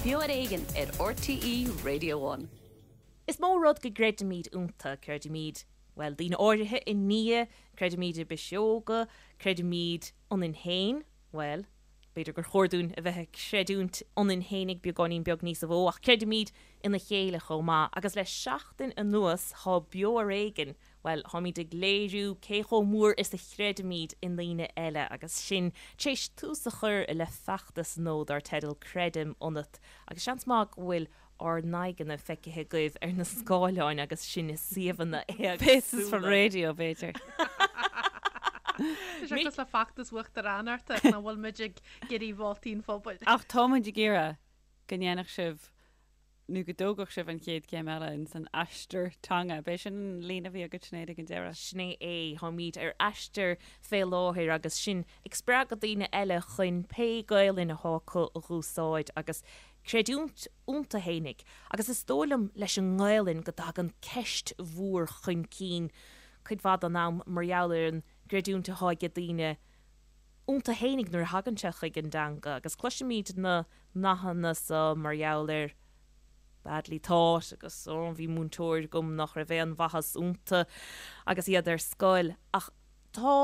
Beo ar Éigean ar RTÉ Radio One. Is mó rud go gcreidimid iontu, creidimid, bhuel, daoine áirithe i nDia, creidimid i bpiseoga, creidimid ionainn féin, bhuel, b'fhéidir gur chóir dúinn a bheith ag creidiúint ionainn féinig beagáinín beag níosa mhó, ach creidimid ina chéile chomh maith. Agus le seachtain anuas tá Beo ar Éigean Bhuel, táimid ag léiriú cé chomh mór is a chreidimid i ndaoine eile agus sinn tar éis tús a chur le feachtas nua dar teideal Creidim Ionat agus seans maith go bhfuil ár n-aghaidheanna feicthe agaibh ar na scáileáin agus sinn i suíomhanna Faces for éagsúla. radio, b'fhéidir. Tá sé cosúil le feachtas uachtaránachta nach bhfuil muid ag iarraidh vótaí an phobail. Ach tá muid ag iarraidh go ndéanfadh sibh nó go dtógfadh sibh an chéad chéim eile ins an aistear teanga. B'é sin an líne a bhí agat Sinéad ag an deireadh. Sin é. Táimid ar aistear fé láthair agus sinn ag spreagadh daoine eile chun pé Gaelainn athá acu a dh'úsáid agus creidiúint iontu fhéinig. Agus is dóigh liom leis an nGaelainn go dtagann ceist mhór chun cinn cuid mhaith den am mar gheall ar an gcreidiúint athá age daoine iontu fhéinig nuair a thagann sé chuig an dteanga agus cloisimid na nathanna so mar gheall ar badly taught agus oh bhí múinteoir agam nach raibh aon mhaitheas iontu agus iad ar scoil ach tá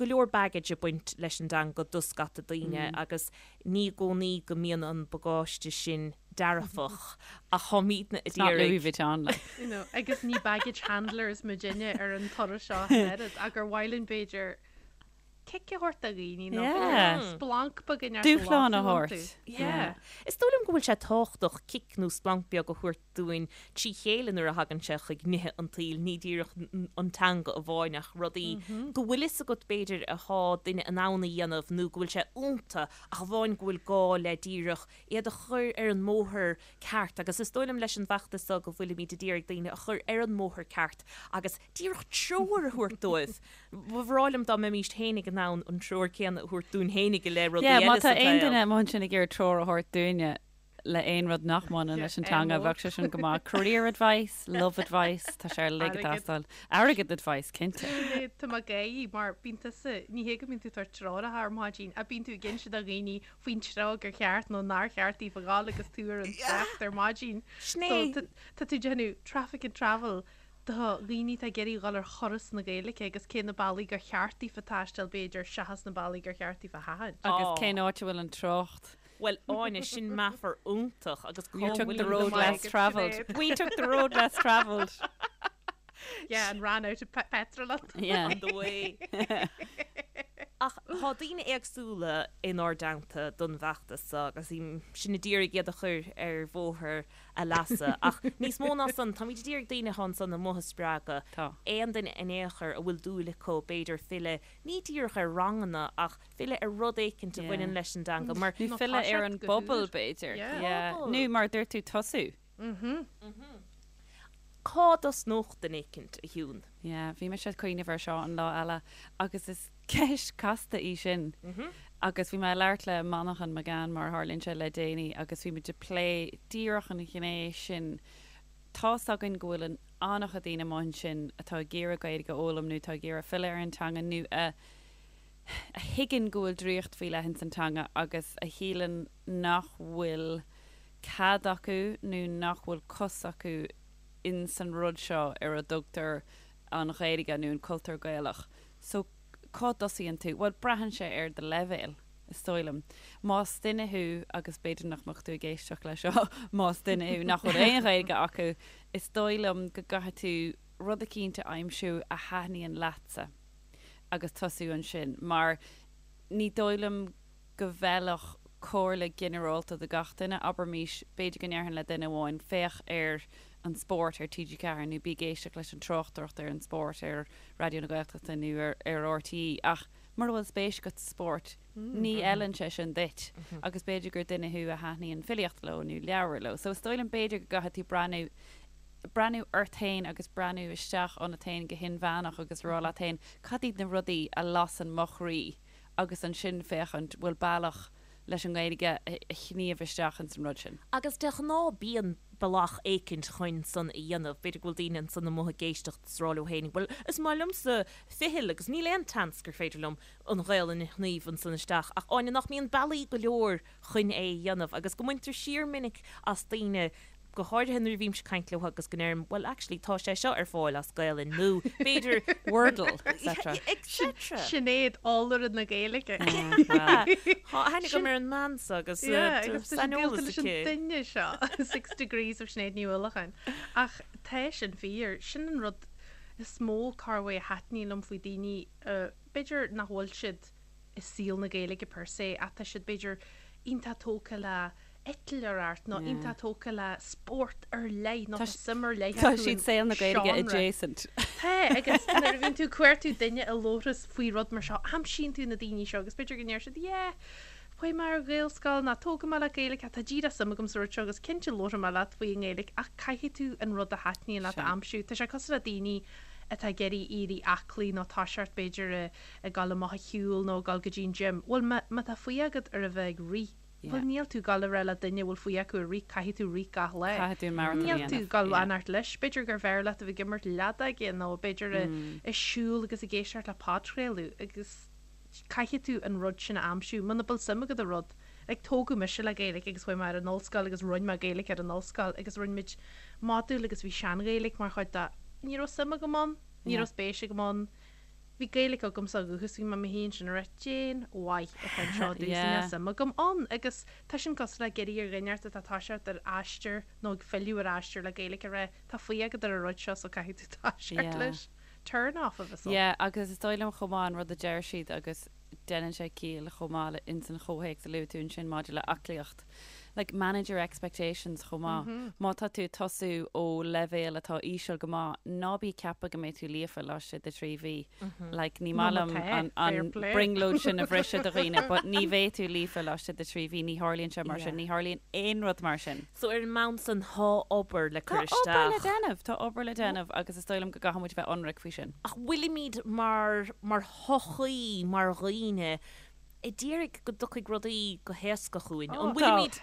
go leor baggage ag baint leis an dteanga do scata daoine agus ní i gcónaí go mbíonn an bagáiste sin dearfach ach táimidne It's not Louis Vuitton like. You know, agus ní baggage handlers muidinne ar an turas seo an oiread ach gur mhaith linn b'fhéidir cic a thabhairt do dhaoine nó Yeah. splanc beag a neart Dúshlán a thabhairt. Yeah. Is dóigh liom go bhfuil sé tábhachtach cic nó splanc beag a thabhairt dúinn trí chéile nuair a thagann sé chuig nithe an tsaoil, ní díreach an teanga amháin ach rudaí go bhfuil fhios agat b'fhéidir athá duine in ann a dhéanamh nó go bhfuil sé iontu ach amháin go bhfuil gá le díreach iad a chur ar an mbóthar ceart agus is dóigh liom leis an bhfeachtas seo go bhfuilimid ag iarraidh daoine a chur ar an mbóthar ceart agus díreach treoir a thabhairt dóibh. Ba bhreá liom dá mbeimíst fhéinig in ann an treoir céanna a thabhairt dúinn fhéinig i leith rudaí Yeah, má eile tá sa aon tsaol. duine amuigh ansin ag iarraidh treoir a thabhairt dúinne le aon rud nach mbaineann leis an teanga, bheadh sé sin go maith. Career advice, love advice, tá sé uilig ag Airgead. teastáil. Airgead advice, cinnte. Sinéad, tá mé ag gáirí mar bíonn tusa, ní hé go mbíonn tú ag tabhairt treoracha ar maidin, ach bíonn tú ag inse do dhaoine faoin treo gur cheart nó nár cheart daofa ghabháil agus tú ar an trácht ar maidin. Sin So é. tá tá tú ag déanamh traffic and travel do dhaoine atá ag iarraidh dhul ar thuras na Gaeilge agus cé na bealaí gur cheart daofa taisteal b'fhéidir seachas na bealaí gur cheart daofa sheachaint. Agus cén áit a bhfuil an trácht? Bhuel, Áine, sin meafar iontach agus cá You took bhfuil the road less travelled. We took the road less travelled. Yeah, and ran out of petrol on Yeah. on the way. Ach tá daoine éagsúla inár dteannta don bhfeachtas seo agus sinn ag iarraidh iad a chur ar bhóthar a leasa. Ach níos mó ná san, táimid ag iarraidh daoine atá ansan amuigh a spreagadh. Tá. Aon duine in aon chor a bhfuil dúil acu, b'fhéidir, filleadh, ní díreach ar ranganna, ach filleadh ar rud éicint a Yeah. bhaineann leis an dteanga. Mar. Nó Nó filleadh ar toiseacht an go bpobal, húr. b'fhéidir. Yeah. Yeah. Pobal. Nó mar a dúirt tú, tosú. Cá dtosnódh duine éicint, a Shiún? Yeah, bhí mise ag cuimhneamh air seo an lá eile agus is ceist casta í sin. Agus bhí mé ag labhairt le Manchán Magan, mar a tharlaíonn sé, le déanaí agus bhí muid ag plé díreach an ghné sin. Tá's againn go bhfuil an an-chuid daoine amuigh ansin atá ag iarraidh Gaeilge a fhoghlaim nó atá ag iarraidh filleadh ar an teanga nó a a thuigeann go bhfuil draíocht faoi leith ins an teanga agus a shíleann nach bhfuil cead acu nó nach bhfuil cos acu ins an rud seo ar a dtugtar an Ghaeilge nó an cultúr Gaelach. So cá dtosaíonn tú? Bhuel, braitheann sé ar do leibhéal, is dóigh liom. Más duine thú, agus b'fhéidir nach mbeadh tú ag éisteacht leis seo, más duine thú nach bhfuil aon Ghaeilge acu, is dóigh liom go gcaithfidh tú rud eicínt a aimsiú a thaitníonn leatsa agus tosú ansin mar ní dóigh liom go bhfeilfeadh comhairle ginearálta do gach duine, abraimís, b'fhéidir go ndéarfainn le duine amháin, féach ar an spórt ar TG4 nó bí ag éisteacht leis an tráchtaireacht ar an spórt ar Raidió na Gaeltachta nó ar ar RTÉ ach mura bhfuil spéis agat sa spórt, ní fheileann sé sin duit agus b'fhéidir gur duine thú a thaitníonn filíocht leo nó leabhair leo. So is dóigh liom b'fhéidir go gcaithfidh tú breathnú breathnú ort féin agus breathnú isteach ionat féin go hinmheánach agus rá leat féin cad iad na rudaí a lasann mo chroí agus ansin féachaint bhfuil bealach. leis an nGaeilge a shníomh isteach ins an rud sin. Agus de ghnáth bíonn bealach éicint chun san a dhéanamh. B'fhéidir go bhfuil daoine ansan amuigh ag éisteacht is ag rá leo féin, bhuel, is maith liomsa ficheall agus níl aon tseans gur féidir liom an Ghaelainn a shníomh ansan isteach. Ach Áine, nach mbíonn bealaí go leor chun é a dhéanamh agus go mbaintear siar minic as daoine, go háirithe nuair a bhímse ag caint leo agus go ndeirim, well actually tá sé seo ar fáil as Gaelainn nó b'fhéidir Wordle, etc. etc. Sinéad, eolaire na Gaeilge. Tá aithne agam ar an mbean seo agus saineolas aici. Leis an duine seo, Six Degrees of Sinéad Ní Uallacháin. Ach tá sin fíor. Sin an rud is mó corruair a thaitníonn liom faoi daoine, b'fhéidir nach bhfuil siad i saol na Gaeilge per se ach tá siad b'fhéidir iontach tógtha le eitleoireacht nó iontach tógtha le spórt ar leith nó tá suim ar leith acu in Tá siad saol na Gaeilge adjacent. Tá, agus nuair a bhíonn tú ag cuartú duine a labhras faoi rud mar seo, aimsíonn tú na daoine seo agus b'fhéidir go ndeir siad yeah, chuaigh mé ar Ghaelscoil nó tógadh mé le Gaeilge, tá díreach suim agam sa rud seo agus cinnte labharfaidh mé leat faoi i nGaeilge ach caithfidh tú an rud a thaitníonn leat a aimsiú. Tá sé cosúil le daoine atá ag iarraidh éirí aclaí nó toiseacht b'fhéidir ag dul amach a shiúl nó ag dul go dtí an gym. Bhuel, má, má tá fuath agat ar a bheith ag rith, bhuel, níl tú ag dul a rá le duine a bhfuil fuath acu ar rith, caithfidh tú rith gach lá. Caithfidh tú marathon a Níl tú dhéanamh. ag dul fanacht leis. B'fhéidir gur bhfearr leat a bheith ag imirt leadóige nó b'fhéidir ag siúl agus ag éisteacht le podchraoladh agus caithfidh tú an rud sin a aimsiú. Muna bhfuil suim agat i rud, like tógadh mise le Gaeilge agus chuaigh mé ar an ollscoil agus rinne mé Gaeilge ar an ollscoil agus rinne muid modúl agus bhí sean-Ghaeilge mar chuid de. Ní raibh suim agam ann, ní raibh spéis agam ann. Bhí Gaeilge agamsa ó dhúchas, bhí mé i mo shuí ansin ag rá cén mhaith atá anseo domhsa, níl suim agam ann agus tá sin cosúil le ag iarraidh ar dhuine inteacht atá ag toiseacht ar aistear nó ag filleadh ar aistear le Gaeilge a rá tá fuath agat ar an rud seo so caithfidh tú toiseacht leis. Turn off a bheas ann. Yeah, agus is dóigh liom chomh maith an rud a deir siad agus déanann sé ciall chomh maith le ins an chomhthéacs a luaigh tú ansin maidir le aclaíocht. Like, manage your expectations chomh maith. Má tá tú ag tosú ó leibhéal atá íseal go maith, ná bí ag ceapadh go mbeidh tú líofa laistigh de thrí mhí. Like, ní maith liom an, an brionglóid sin a bhriseadh do dhaoine, but ní bheidh tú líofa laistigh de thrí mhí, ní tharlaíonn sé mar sin, ní tharlaíonn aon rud mar sin. So ar an mbonn san, thá obair le cur Tá obair le isteach. déanamh, tá obair le déanamh agus is dóigh liom go gcaithfidh muid bheith ionraic faoi sin. Ach bhfuilimid mar, mar shochaí, mar dhaoine, ag iarraidh go dtiocfaidh rudaí go héasca chugainn. An bhfuilimid?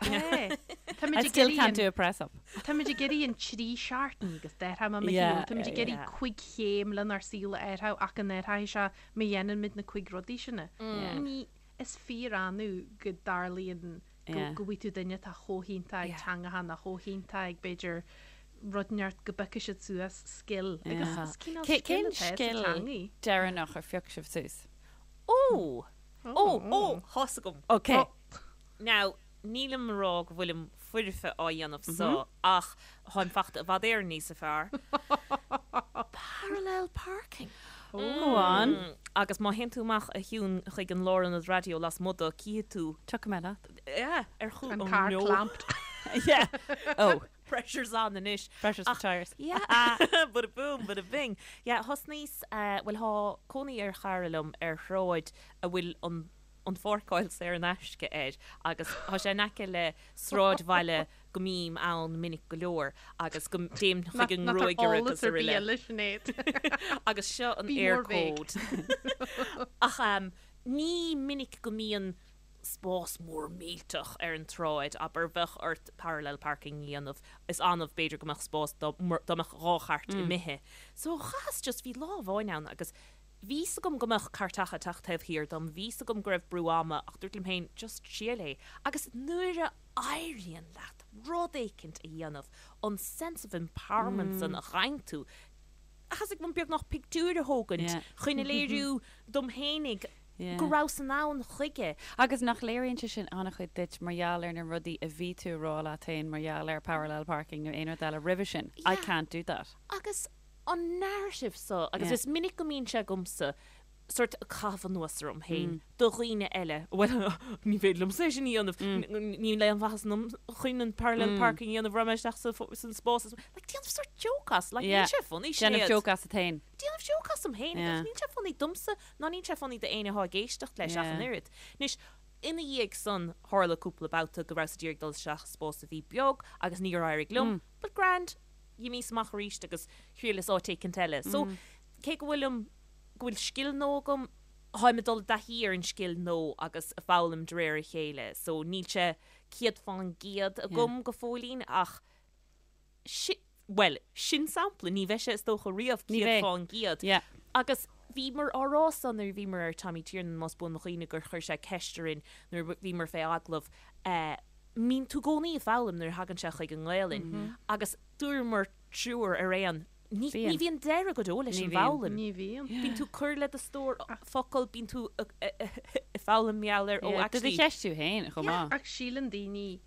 Táimid I ag still iarraidh can't an do a press up. Táimid ag iarraidh an trí seachtain agus d'athraigh mé mo shaol. Táimid ag iarraidh cuig chéim lenár saol a athrú ach go n-athraíonn sé má dhéanann muid na cuig rudaí sin. Ní, is fíor-annamh go dtarlaíonn go go bhfaighidh tú duine atá chomh hiontach ag teangacha nó chomh hiontach ag b'fhéidir rud inteacht go bpiocfaidh siad suas scil agus is cineál Cén scil atá sa scil teangaidh. deireanach ar phioc sibh suas? Ó! Ó! Ó! Thá's agam. Ok. Now, nílim a rá go bhfuilim foirfe á dhéanamh so, ach táim fachta i bhfad Éireann níosa fearr. Parallel parking. Go on. Agus má théann tú amach a Shiún chuig an lárionad raidió lasmuigh de, cífidh tú. Tiocfaidh mé leat. Yeah, ar chúl. An Oh car no. clamped. Yeah. Oh. Pressure's on anois. Pressure's for tires. Yeah. Bada boom, bada bing. Yeah, thosnaíos, bhuel thá cónaí ar chara liom ar shráid a bhfuil an an pháirceáil saor in aisce air agus thá sé in aice le sráidbhaile go mbím ann minic go leor agus go dtéim chuig an ngruagaire agus araile. Agus seo an Eircode. Ach ní minic go mbíonn spás mór millteach ar an tsráid, abair, bheadh ort parallel parking a dhéanamh, is annamh b'fhéidir go mbeadh spás dá mbeadh dhá chairt imithe. So chaitheas just, bhí lá amháin ann agus bhí 'fhios agam go mbeadh cairteacha ag teacht taobh thiar dom, bhí 'fhios agam go raibh brú ama ach dúirt liom féin just triail é. Agus nuair a éiríonn leat rud éicint a dhéanamh, an sense of empowerment san a fhaigheann tú, thosaigh mé beagnach pictiúir a thógaint chun a léiriú dom fhéinig go rabhas in ann chuige. Agus nach léiríonn sé sin an-chuid duit mar gheall ar na rudaí a bhí tú a rá leat féin mar gheall ar parallel parking nó aon rud eile roimhe sin, I can't do that. Agus an narrative so, agus is minic go mbíonn sé agamsa, sort caitheamh anuas orm féin do dhaoine eile, bhuel, ní féidir liomsa é sin a dhéanamh, níl aon mhaitheas ionam chun an parallel parking a dhéanamh, raghaidh mé isteach san spás, like déanamh sort joke as, like níl sé funny, Sinéad. Déanamh joke asat féin. Déanamh joke asam féin, agus níl sé funny domsa ná níl sé funny d'éinne atá ag éisteacht leis ach an oiread. Anois, ina dhiaidh san, tharla cúpla babhta go rabhas ag iarraidh dul isteach i spás a bhí beag agus níor éirigh liom, but grand, dh'imíos amach arís agus thriaileas áit éicint eile. So, cé go bhfuilim, go bhfuil scil nua agam. Táim ag dul i dtaithí ar an scil nua agus ag foghlaim de réir a chéile so níl sé 100% agam go fóillín ach sin, bhuel, sin sampla, ní bheidh sé is dócha riamh 100%. Agus bhíomar á rá san nuair a bhíomar ar Tommy Tiernan más buan mo chuimhne gur chuir sé ceist orainn nuair a bhíomar fé agallamh, mbíonn tú i gcónaí ag foghlaim nuair a thagann sé chuig an nGaelainn agus dúramar triúr ar aon Ní bhíonn deireadh go deo leis an bhfoghlaim. Ní bhíonn. Bíonn tú ag cur le do stór focal, bíonn tú ag foghlaim mar gheall ar, oh actually. Do do cheistiú féin chomh maith. Ach síleann daoine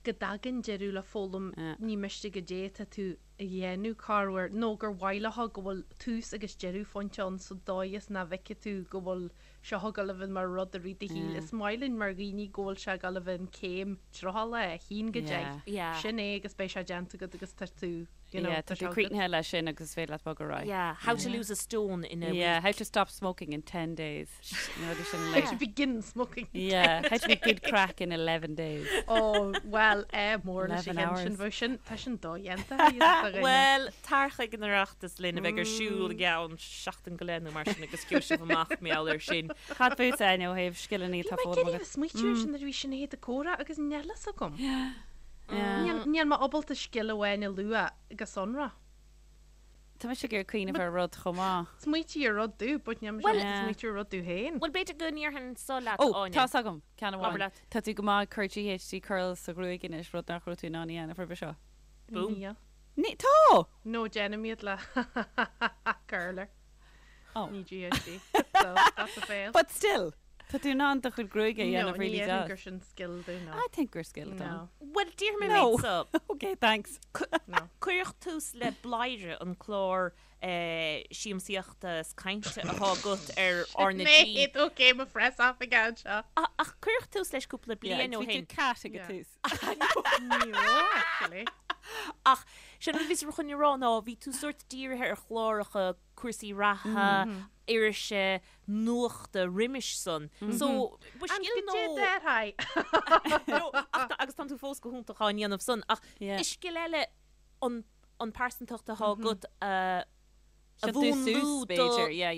go dtagann deireadh le foghlaim, ní miste goidé atá tú a dhéanamh corruair, nó gur mhaith leo go bhfuil tús agus deireadh phointe ann sa dóigh is nach bhfeicfidh tú go bhfuil seo ag dul a bheith mar rud i rith do shaoil. Is maith linn mar dhaoine go bhfuil sé ag dul a bheith an céim troitheála 1 go 10. Sin é agus beidh sé déanta agat agus tá tú You know, Yeah, tá tú críochnaithe leis sin agus is féidir leat bogadh ar aghaidh. Yeah, how to lose a stone in a week. Yeah, how to stop smoking in 10 days. You know, sin How to begin smoking. Yeah, how to be good craic in 11 days. Oh, well, eh, mór leis an sin bheadh sin, tá sin dodhéanta. Well, tar chuig an Oireachtas linn a bheidh ar siúl i gceann seachtain go leith nó mar sin agus gheobhaidh sibh amach mar gheall air sin. Cad fútsa, Áine, ó thaobh scileanna atá foghlamtha agat? Bhí mé ag iarraidh smaoitiú ar sin nuair a bhí Sinéad ag comhrá agus níl a fhios agam. Níl mé ábalta scil amháin a lua go sonrath. Tá mise ag iarraidh cuimhneamh ar rud chomh maith. Smaoitigh ar rud domh, but níl mise ábalta smaoitiú ar rud domh féin. Bhuel, b'fhéidir go ndéarfainn so leat, Ó, Áine. tá's agam, ceann amháin. Abair leat. Tá tú go maith ag cur GHD curls sa ghruaig anois, rud nach raibh tú in ann a dhéanamh roimhe seo. Boom. Níl. Ní, tá! No, déanaim iad le curler. Oh. Ní GHD. So, that's a fail. But still! Tá tú in ann do chuid gruaige a dhéanamh really deas. No, ní déarfainn gur sin scil domh, no. I think gur scil atá ann. No. Bhuel, déarfaidh mé méid so. Ok, thanks. No. Cuireadh tús le Bladhaire, an clár siamsaíochta is cainte atá agat ar R na G. Mate, ok, mo press off again seo. Ach cuireadh tús leis cúpla bliain ó shin. Bhí tú cat ag an tús. Ní raibh, actually. Ach sin rud a bhí chun a rá ná bhí tú sórt dírithe ar chláracha cúrsaí reatha, irise, nuachta roimis san. So, ba scil nó... And go dté No, ach agus tánn tú fós go hiontach á ndéanamh san, ach is scil eile an an pearsantacht atá agat a a mhúnlú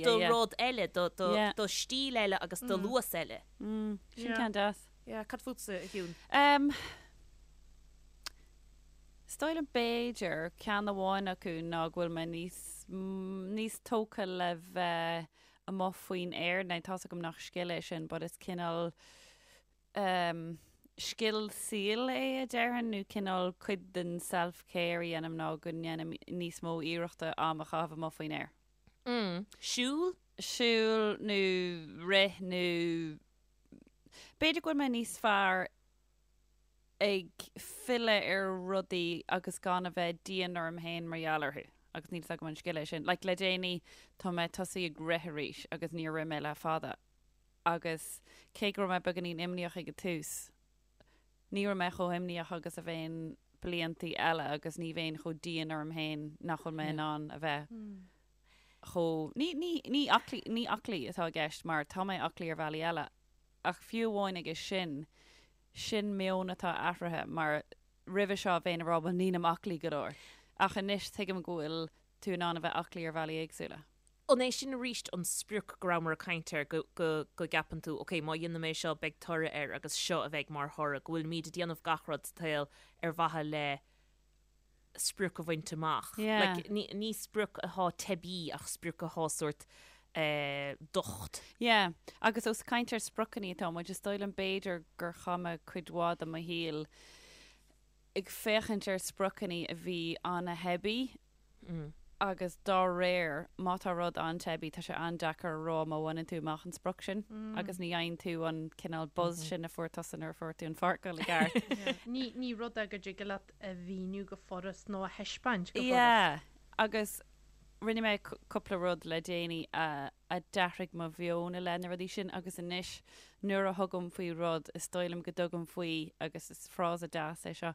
do rud eile, do do stíl eile agus do luas eile. Sin ceann deas. Yeah, cad fútsa, a Shiún? Is dóigh liom b'fhéidir, ceann amháin acu ná go bhfuil mé níos, níos tógtha le bheith amuigh faoin aer. Now tá's agam nach scil é sin but is cineál ehm scil saoil é a déarfainn nó cineál cuid den self care a dhéanaim ná go ndéanaim níos mó iarrachta am a chaitheamh amuigh faoin aer. Mm. Siúl? Siúl nó rith nó b'fhéidir go bhfuil mé níos fearr ag filleadh ar rudaí agus gan a bheith dian orm féin mar gheall orthu. Agus níl 's agam an scil é sin. Like, le déanaí, tá mé tosaithe ag rith arís agus níor rith mé le fada. Agus cé go raibh mé beagáinín imníoch ag an tús, ní raibh mé chomh himníoch agus a bheinn bliantaí eile agus ní bheinn chomh dian orm féin nach bhfuil mé in ann a bheith chomh, ní, ní, ní aclaí, ní aclaí atá i gceist mar tá mé aclaí ar bhealaí eile ach fiú amháin aige sin, Sin meon atá athraithe mar roimhe seo bheinn ag rá bhuel nílim aclaí go leor. Ach anois tuigim go bhfuil tú in ann a bheith aclaí ar bhealaí éagsúla. An é sin arís an sprioc go rabhamar ag caint air, go, go, go gceapann tú ok má dhéanaim é seo beidh toradh air agus seo a bheidh mar thoradh, go bhfuilimid ag déanamh gach rud sa tsaol ar mhaithe le sprioc a bhaint amach. Yeah. Like, ní, ní sprioc atá teibí ach sprioc atá sórt eh, docht. Yeah. Agus ós caint ar spriocanna atá muid, is dóigh liom b'fhéidir gur chaith mé cuid mhaith de mo shaol ag féachaint ar spriocanna a bhí an-teibí agus dá réir, má tá rud an-teibí, tá sé an-deacair a rá má bhaineann tú amach an sprioc sin agus ní fhaigheann tú an cineál buzz sin a fuair tusa nuair a fuair tú an pháirceáil i gceart. Ní, ní rud é go dtig leat a mhíniú go furast nó a thaispeáint go furast. Yeah, agus rinne mé cúpla rud le déanaí a a d'athraigh mo mheon i leith na rudaí sin agus anois nuair a thugaim faoi rud, is dóigh liom go dtugaim faoi, agus is frása deas é seo,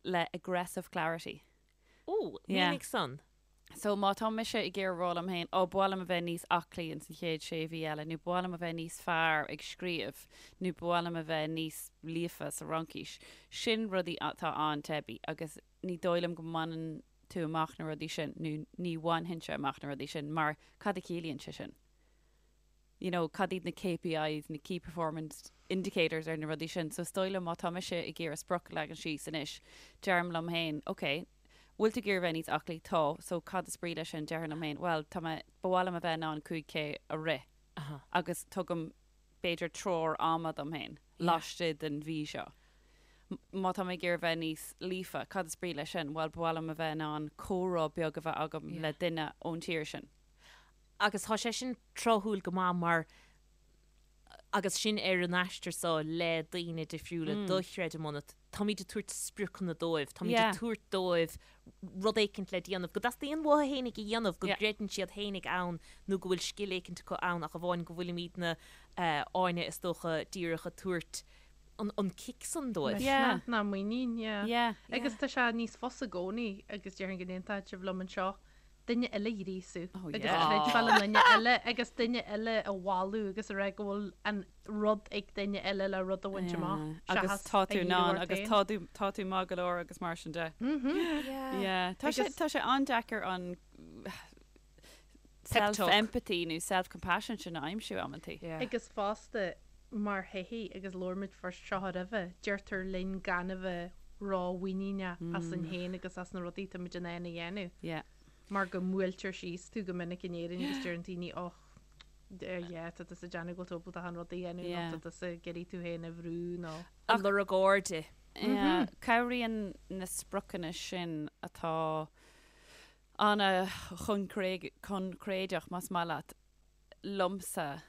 le aggressive clarity. Ó, mínigh san. So má tá mise ag iarraidh rá liom féin, ó, ba mhaith liom a bheith níos aclaí ins an chéad sé mhí eile, nó ba mhaith liom a bheith níos fearr ag scríobh, nó ba mhaith liom a bheith níos líofa sa Fhraincis, sin rudaí atá an-teibí agus ní dóigh liom go mbaineann tú amach na rudaí sin, nó ní bhainfinnse amach na rudaí sin, mar cad a chiallaíonn sé sin? You know, cad iad na KPIs, na Key Performance Indicators ar na rudaí sin. So is dóigh liom má tá mise ag iarraidh sprioc a leagan síos anois, deirim liom féin, ok, bhfuil tú ag iarraidh bheith níos aclaí? Tá. So cad is brí leis sin? Déarfainn liom féin, bhuel, tá mé, ba mhaith liom a bheith in ann 5K a rith. Agus tugaim b'fhéidir treoir ama dom féin laistigh den mhí seo. Má tá mé ag iarraidh bheith níos líofa, cad is brí leis sin? Bhuel, ba mhaith liom a bheith in ann comhrá beag a bheith agam le duine ón tír sin. Agus tá sé sin tráthúil go maith mar agus sinn ar an aistear seo le daoine difriúla do Chreidim Ionat, táimid ag tabhairt spriocanna dóibh, táimid ag tabhairt dóibh rud éicint le déanamh, go dteastaíonn uathu fhéinig a dhéanamh, go gcreideann siad fhéinig ann nó go bhfuil scil éicint acu ann ach amháin go bhfuilimidne, Áine, is dócha, díreach ag tabhairt an cic san dóibh. Misneach ná muinín, yeah. Agus tá sé níos fusa i gcónaí agus déarfainn go n-aontóidh sibh liom anseo, duine eile a ghríosú agus creidbheáil i nduine eile agus duine eile a mholadh agus a rá go bhfuil an rud ag duine eile le rud a bhaint amach Agus tá tú in ann agus tá tú tá tú maith go leor agus mar sin de. Yeah. Tá sé tá sé an-deacair an self-empathy nó self-compassion sin a aimsiú amantaí. Agus fosta mar shochaí agus labhair muid faoi seo roimhe, deirtear linn gan a bheith ró-mhuiníneach asainn féin agus as na rudaí atá muid in ann a dhéanamh. Yeah. Mar go mbuailtear síos tú go minic in Éirinn agus deireann daoine och, yeah, tá tusa ag déanamh go bhfuil tú ábalta achan rud a dhéanamh nó tá tusa ag iarraidh tú féin a bhrú nó. Ag lorg airde. Yeah. Cabhraíonn na spriocanna sin atá an-choincréideach, más maith leat, liomsa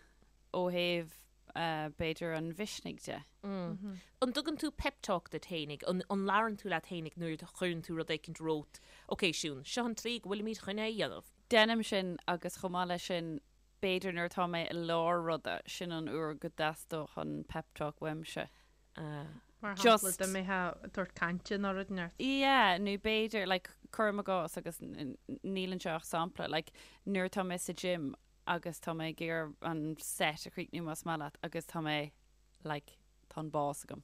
ó thaobh b'fhéidir an mhisnigh de. An dtugann tú pep talk duit fhéinig? An labhrann tú leat fhéinig nuair a chuireann tú rud éicint romhat, Ok Siún, seo an tslí go bhfuilimid chun é a dhéanamh. Déanaim sin agus chomh maith leis sin, b'fhéidir nuair atá mé i lár ruda, sin an uair go dteastódh an pep talk uaimse. Mar shampla, dá mbeifeá ag tabhairt cainte nó rud inteacht. Yeah, nó b'fhéidir, like, cuirim i gcás agus níl anseo ach sampla, like, nuair atá mé sa gym agus tá mé ag iarraidh an set a chríochnú más maith leat agus tá mé, like, tá an bás agam.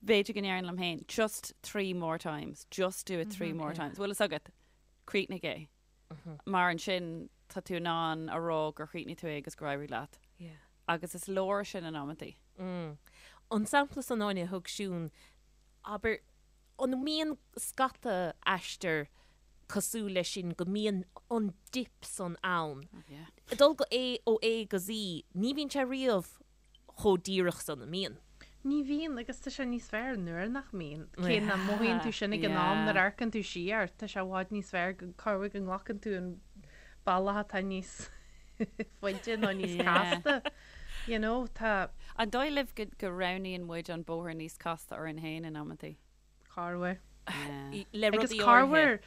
B'fhéidir go ndéarfainn liom féin, just three more times, just do it three more times. Bhfuil fhios agat, críochnaigh é. Mar ansin tá tú in ann a rá gur chríochnaigh tú é agus gur éirigh leat. Agus is leor sin in amantaí. An sampla san Áine a thug Siún, abair, an mbíonn scata aistear cosúil leis sin go mbíonn an dip san ann? Ag dul go A ó A go Z, ní bhíonn sé riamh chomh díreach san, an mbíonn? Ní bhíonn, agus tá sé níos fearr nuair nach mbíonn. Cé nach mothaíonn tú sin ag an am nuair a amharcann tú siar, tá sé i bhfad níos fearr go corruair go nglacann tú an bealach atá níos faide nó níos casta. You know, tá. An dóigh libh go roghnaíonn muid an bóthar níos casta orainn féin in amantaí? Corruair. Le Agus rudaí áirithe. corruair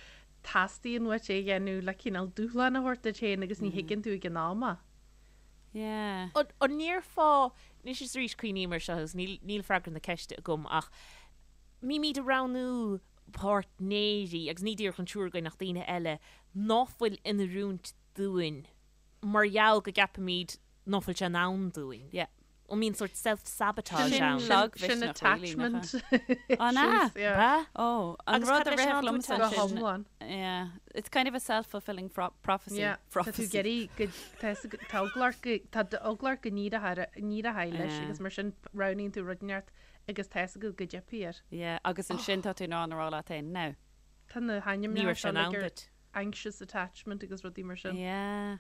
teastaíonn uait é a dhéanamh le cineál dúshlán a thabhairt duit féin agus ní thuigeann tú ag an am é. Yeah. An ndéarfá, anois is arís cuimhním air seo agus níl, níl freagra na ceiste agam ach mbímid ag roghnú páirtnéirí, agus ní díreach an triúr againn ach daoine eile, ná fuil in oiriúint dúinn mar gheall go gceapaimid ná fuil sé in ann dúinn. Yeah. An mbíonn sórt self-sabotage ann? Sin Sin lagmhisneach really, nach attachment ea? An ea? issues, yeah. Ba? Oh, an Agus rud cad a leis an rithfeadh tú liomsa Go sin, hiomlán. yeah, it's kind of a self-fulfilling prophecy. Yeah, tá tú ag iarraidh go, tá fhios agat, tá eagla ort go, tá eagla ort go n-éireoidh leis Yeah. agus mar sin roghnaíonn tú rud inteacht agus tá fhios agat go dteipfidh air. Yeah, agus ansin tá tú in ann a rá leat féin, now. Tá na Ní hainmneacha raibh sé seo in ann like ar duit. anxious attachment agus rudaí mar sin. Yeah.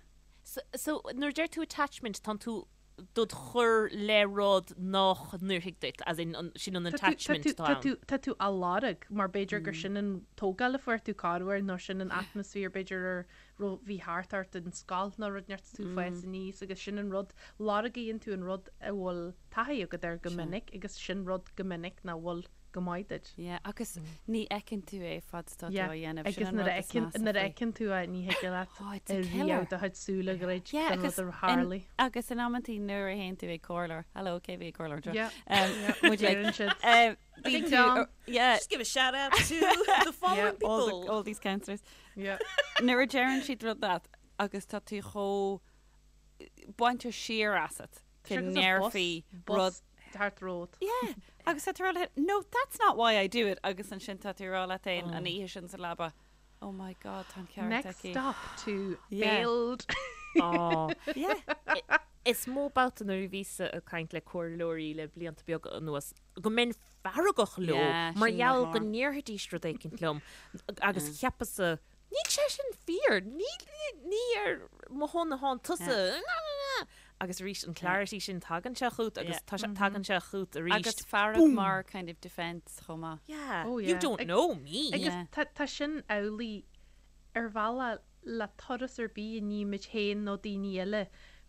So, so nuair a deir tú attachment, tánn tú dod chur le rud nách n-oirfidh duit, as in, sin an attachment atá ann. Tá tú á lorg, mar b'fhéidir gur sin an tógáil a fuair tú corruair nó sin an atmaisféar b'fhéidir a raibh, bhí thart ort in scoil nó rud inteacht is tú ag fás aníos agus sin an rud, lorgaíonn tú an rud a bhfuil taithí agat air go minic agus sin rud go minic nach bhfuil go maith duit. Yeah, agus ní fheiceann tú é fad is atá tú Yeah, á dhéanamh. Sin agus an nuair rud a is fheiceann, measa nuair a faoi. fheiceann tú é ní thig leat Oh, it's a killer. riamh do chuid súl a dhruid Yeah, don rud agus a in, tharlaigh. agus in amantaí nuair a théann tú ag comhairleoir, hello, cé bhí ag comhairleoir anseo? Yeah, Um, yeah, would you like, deireann siad. um, bíonn Ding tú, dong. yeah, Just give a shout out to the following all, people. the, all these counsellors. Yeah. Nuair a deireann siad rud leat agus tá tú chomh bainte siar asat go Sure, 'cause a bus, ndéarfaí rud bus thart romhat. Yeah, agus tá tú ag rá leat, no, that's not why I do it, agus ansin tá tú ag rá leat féin an oíche sin sa leaba, oh my God, tá an ceart Next aici. stop to Yeah. failed. Á, yeah. Is mó babhta nuair a bhíos-sa ag caint le comhairleoirí le blianta beaga anuas go mbeinn feargach leo mar gheall go ndéarfaidís rud éicint liom agus cheapas-sa, níl sé sin fíor, ní ar mo shon atánn tusa, agus arís an clarity sin tagann sé chugat agus tagann sé chugat arís. Agus fearg mar kind of defence chomh maith. Yeah, you don't know me. Agus tá sin amhlaidh ar bhealach le turas ar bith a nímid féin nó daoine eile,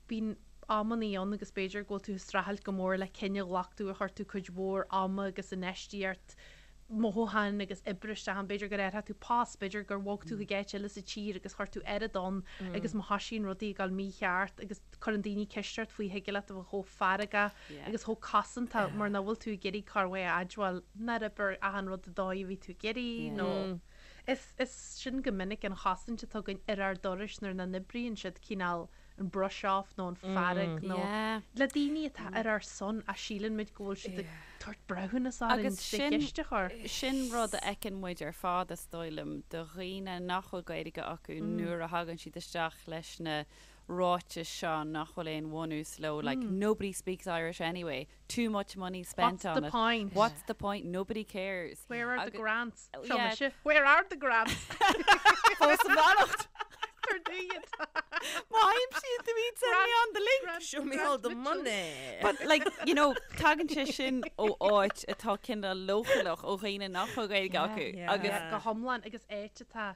bíonn amannaí ann agus b'fhéidir go bhfuil tú ag streachailt go mór le cinneadh a ghlac tú ar chuir tú cuid mhór ama agus infheistíocht, mothúcháin agus oibre isteach ann, b'fhéidir gur athraigh tú post, b'fhéidir gur bhog tú chuig áit eile sa tír agus chuir tú oiread ann agus má thoisíonn rudaí ag dul mícheart agus cuireann daoine ceist ort faoi thig leat a bheith chomh feargach agus chomh cosantach mar nach bhfuil tú ag iarraidh corruair a admháil nár oibrigh achan rud an dóigh a bhí tú ag iarraidh nó Is is sin go minic an chosaint atá againn ar ár dturais nuair nach n-oibríonn siad, cineál an brush off nó an fearg nó le daoine atá ar ár son ach síleann muid go bhfuil siad ag tabhairt breithiúnas orainn Agus trí sin cheist a chur. sin rud a fheiceann muid ar fad is dóigh liom do dhaoine nach bhfuil Gaeilge acu nuair a thagann siad isteach leis na ráitis seo nach bhfuil aon bhunús leo like nobody speaks Irish anyway too much money spent What's on the it. point? What's the point? Nobody cares. Where are the Agus- grants? Oh, Seo yeah. mise. Where are the grants? Fós i bhfanacht. Tar dúiad. Má aimsíonn tú iad send me on the link. Grant- Show me Grant all the Mitchell. money. But like, you know, tagann sé sin ó áit atá cineál leochaileach ó dhaoine nach bhfuil Gaeilge acu. yeah. Agus Yeah, go hiomlán agus áit atá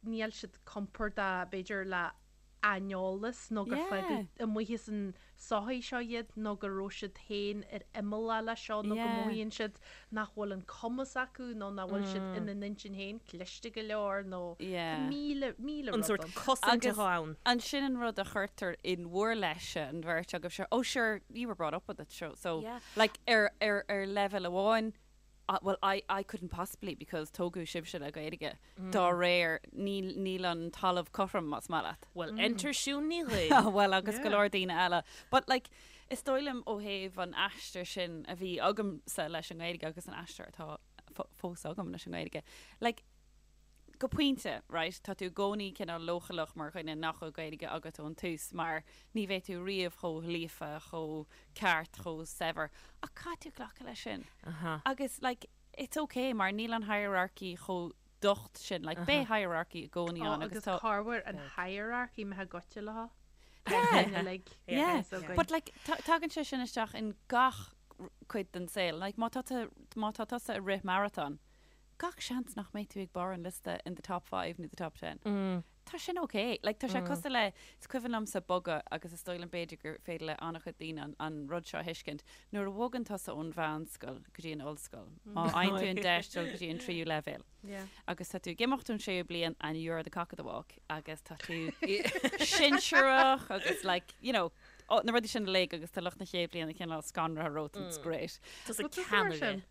níl siad compordach b'fhéidir le aineolas nó gur Yeah. fágadh amuigh as an sochaí seo iad nó go raibh siad féin ar imeall leis seo nó go Yeah. mothaíonn siad nach bhfuil an cumas acu nó nach bhfuil siad ina n-intinn féin cliste go leor nó Yeah. míle míle An rud sórt ann. cosaint Agus atá ann. ansin an rud a chuirtear in bhur leithse an bheirt agaibh sure, oh sure, you were brought up with it, so, so Yeah. like ar, ar, ar leibhéal amháin, Well, I, I couldn't possibly because tógadh sibhse le Gaeilge. Dá réir, níl, níl an talamh cothrom más maith leat. Well, enter Siún Ní Dhuinn. Ah, well, agus go leor daoine eile. But like, is dóigh liom ó thaobh an aistir sin a bhí agamsa leis an nGaeilge agus an aistir atá fós agam leis an nGaeilge, like, go pointe, right, tá tú i gcónaí cineál leochaileach mar dhuine nach bhfuil Gaeilge agat ón tús mar ní bheidh tú riamh chomh líofa, chomh ceart, chomh saibhir. Ach caithfidh tú glacadh leis sin. Agus like, it's okay mar níl an hierarchy chomh docht sin, like beidh hierarchy i gcónaí Ó, ann agus agus tá. corruair an hierarchy imithe goite leo. Yeah. Uilig. Yeah. So againn. But like, tagann sé sin isteach in gach cuid den saol. Like, má tá tú, má tá tusa ag rith marathon, gach seans nach mbeidh tú ag barr an liosta in the top five nó the top ten. Tá sin ok. Like, tá sé cosúil le, is cuimhin liomsa bogadh agus is dóigh liom b'fhéidir gur féidir le an-chuid daoine an, an rud seo a thuiscint, nuair a bhogann tusa ón mheánscoil go dtí an ollscoil, má fhaigheann tú an deis dul go dtí an tríú leibhéal agus tá tú ag imeacht ón séú bliain and you're the cock of the walk agus tá tú sinsearach agus like, you know, oh, na rudaí sin uilig agus tá lucht na chéad bhliana cineál scanraithe romhat and it's great. Tusa Bhfuil tusa mar ceannaire. sin?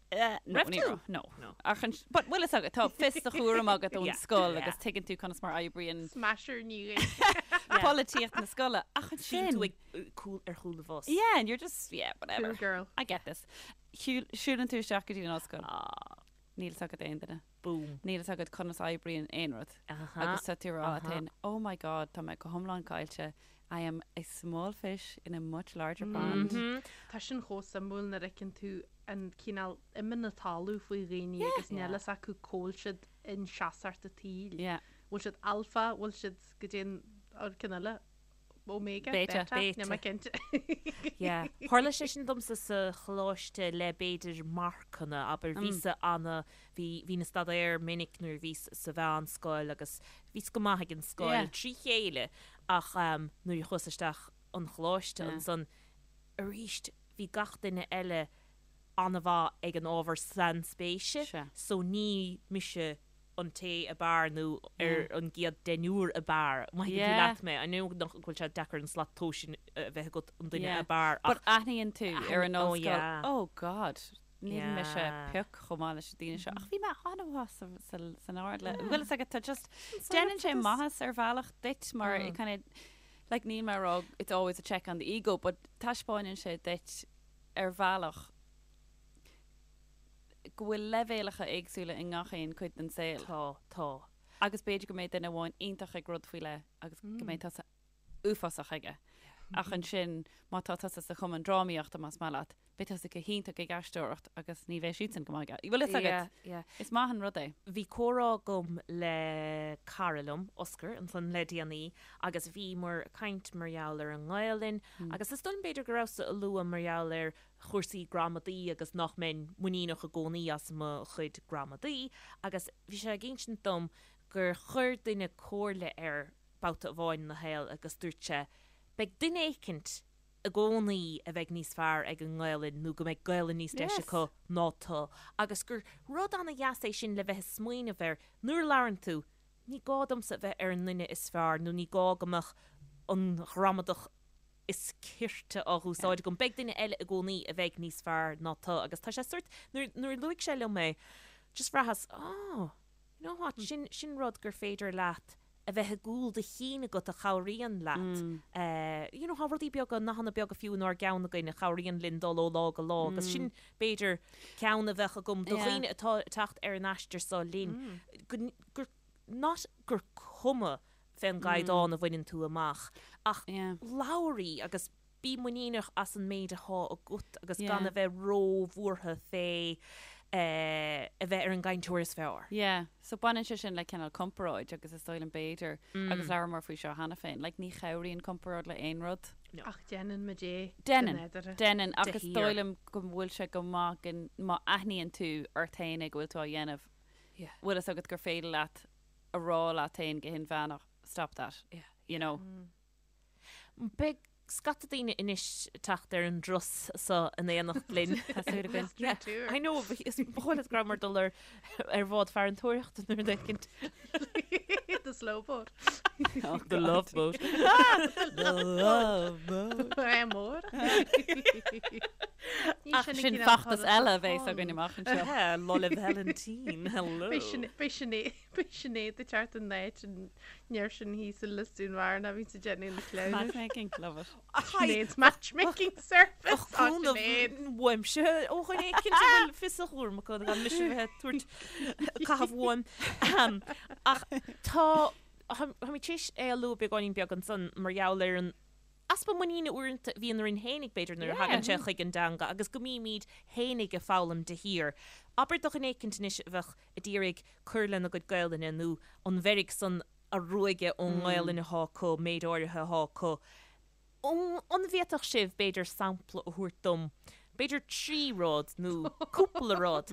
No, Raibh ní tú? raibh, no. No. Ach an, but bhfuil fhios agat, tá fios do chúram agat ón Yeah. scoil Yeah. agus tuigeann tú conas mar oibríonn Smasher Ní Dhuinn. polaitíocht na scoile. Ach Bíonn ansin, tú ag cúl, ar chúl an bhus. yeah, and you're just, yeah, whatever. Cool girl. I get this. Shiúil, siúlann tú isteach go dtí an ollscoil. Ah, Níl fhios agat aon duine. boom. Níl fhios agat conas oibríonn aon rud. Aha. Agus tá tú ag rá leat aha. féin, oh my god, tá mé go hiomlán caillte. I am a small fish in a much larger pond. Mhm. Tá sin chomh suimiúil nuair a fheiceann tú an cineál ime na talún faoi dhaoine agus níl fhios acu cá bhfuil siad in seasacht an tsaoil. Yeah. Bhfuil siad alpha, bhfuil siad go dtí an an ceann eile, omega, Beta. beta, níl mé Beta. cinnte. Yeah. Tharla sé sin domsa sa choláiste le b'fhéidir marcanna, abair, bhíos-sa ana, bhí, bhínn ag staidéar minic nuair a bhíos sa mheánscoil agus bhíos go maith ag an scoil Yeah. trí chéile ach nuair a chuas isteach an choláiste Yeah. ansan arís bhí gach duine eile an-mhaith ag an ábhar sainspéise Sea. so ní mise an té ab fhearr nó ar an gcéad deichniúr ab fhearr. Má thuigeann tú Yeah. leat mé, I know nach bhfuil sé deacair an slat tomhais sin a bheith agat an duine Yeah. ab fhearr But ach aithníonn tú ar an oh ollscoil, yeah. oh God, níl mise Yeah. pioc chomh maith leis na daoine seo. Ach bhí mé an-mhaith sa, sa, san ard le, bhfuil fhios agat, tá just, déanann sé maitheas ar bhealach duit mar it kind of, like níl mé ag rá it's always a check on the ego, but taispeánann sé duit ar bhealach go bhfuil leibhéalacha éagsúla i ngach aon cuid den saol. Tá, tá. Agus b'fhéidir go mbeidh duine amháin iontach ag rud faoi leith agus go mbeidh tusa. uafásach aige. Ach ansin, má tá tusa sa chumann drámaíochta, más maith leat, beidh tusa go hiontach ag aisteoireacht agus ní bheidh siadsan go maith aige. Bhfuil fhios agat? Yeah, yeah. Is maith an rud é. Bhí comhrá agam le cara liom, Oscar, ansan le déanaí agus bhíomar ag caint mar gheall ar an nGaelainn agus is dóigh liom b'fhéidir go rabhas-sa ag lua mar gheall ar chúrsaí gramadaí agus nach mbeinn muiníneach i gcónaí as mo chuid gramadaí agus bhí sé ag insint dom gur chuir duine comhairle air babhta amháin ina shaol agus dúirt sé, beidh duine éicint i gcónaí a bheidh níos fearr ag an nGaelainn nó go mbeidh Gaelainn níos deise acu ná tú agus gur rud ana-dheas é sin le bheith ag smaoineamh air nuair a labhrann tú, ní gá domsa a bheith ar an nduine is fearr nó ní gá go mbeadh an ghramadach is cirte á húsáid agam. Beidh duine eile i gcónaí a bheidh níos fearr ná tú agus tá sé sórt, nuair, nuair a luaigh sé liom é, just bhraitheas, oh, you know what, sin, sin rud gur féidir leat a bheith i gcúl do chinn agat a chabhraíonn leat. Eh, you know, tá rudaí beaga, nathanna beaga fiú inár gceann againn a chabhraíonn linn dul ó lá go lá agus sin, b'fhéidir, ceann a bheadh agam do dhaoine atá ag teacht ar an aistear seo linn, go, gur, not gur cuma fén gcaighdeán a bhaineann tú amach ach labhair í agus bí muiníneach as an méid athá agat agus gan a bheith ró-bhuartha fé a bheith ar an gcainteoir is fearr. Yeah, so baineann sé sin le cineál comparáid agus is dóigh liom b'fhéidir, agus labhramar faoi seo cheana féin, like ní chabhraíonn comparáid le aon rud. No. Ach déanann muid é go Déanann, nádúrtha. déanann De ach is shíor. dóigh liom go bhfuil sé go maith go, má aithníonn tú ort féin é go bhfuil tú á dhéanamh, Yeah. bhfuil fhios agat gur féidir leat a rá leat féin go hinmheánach, stop that, Yeah. you know. Beidh scata daoine anois ag teacht ar an dturas so in éineacht linn. Tá súil againn. Yeah, I know, but is ba chóir leat go rabhamar ag dul ar ar bhád farantóireachta nó rud éicint. The slow boat. Oh, The love boat. The love boat. É mór. Ach sin feachtas eile a bheas againn amach anseo. Yeah, Lá 'le Vailintín, hello. Beidh Sinéad Beidh Sinéad ag teacht in áit an fhir sin thíos i Lios Dúin Bhearna a bhíonns ag déanamh na cleamhnais. Matchmaking, love it. Sinéad's matchmaking service. Ach cúnamh uaimse ó dhuine éicint a bhfuil fios a chúraim acu gan mise a bheith ag tabhairt caitheamh uaim. Ach tá, táimid tar éis é a lua beagáinín beag ansan mar gheall ar an easpa muiníne uaireanta a bhíonn orainn fhéinig, b'fhéidir, nuair a thagann sé chuig an dteanga agus go mbímid fhéinig ag foghlaim de shíor. Abair do dhuine éicint anois a bheadh ag iarraidh cur lena gcuid Gaelainne nó an mheirg san a ruaigeadh ón nGaelainn athá acu, méid áirithe athá acu. An bhféadfadh sibh, b'fhéidir, sampla a thabhairt dom, b'fhéidir 3 rud nó cúpla rud,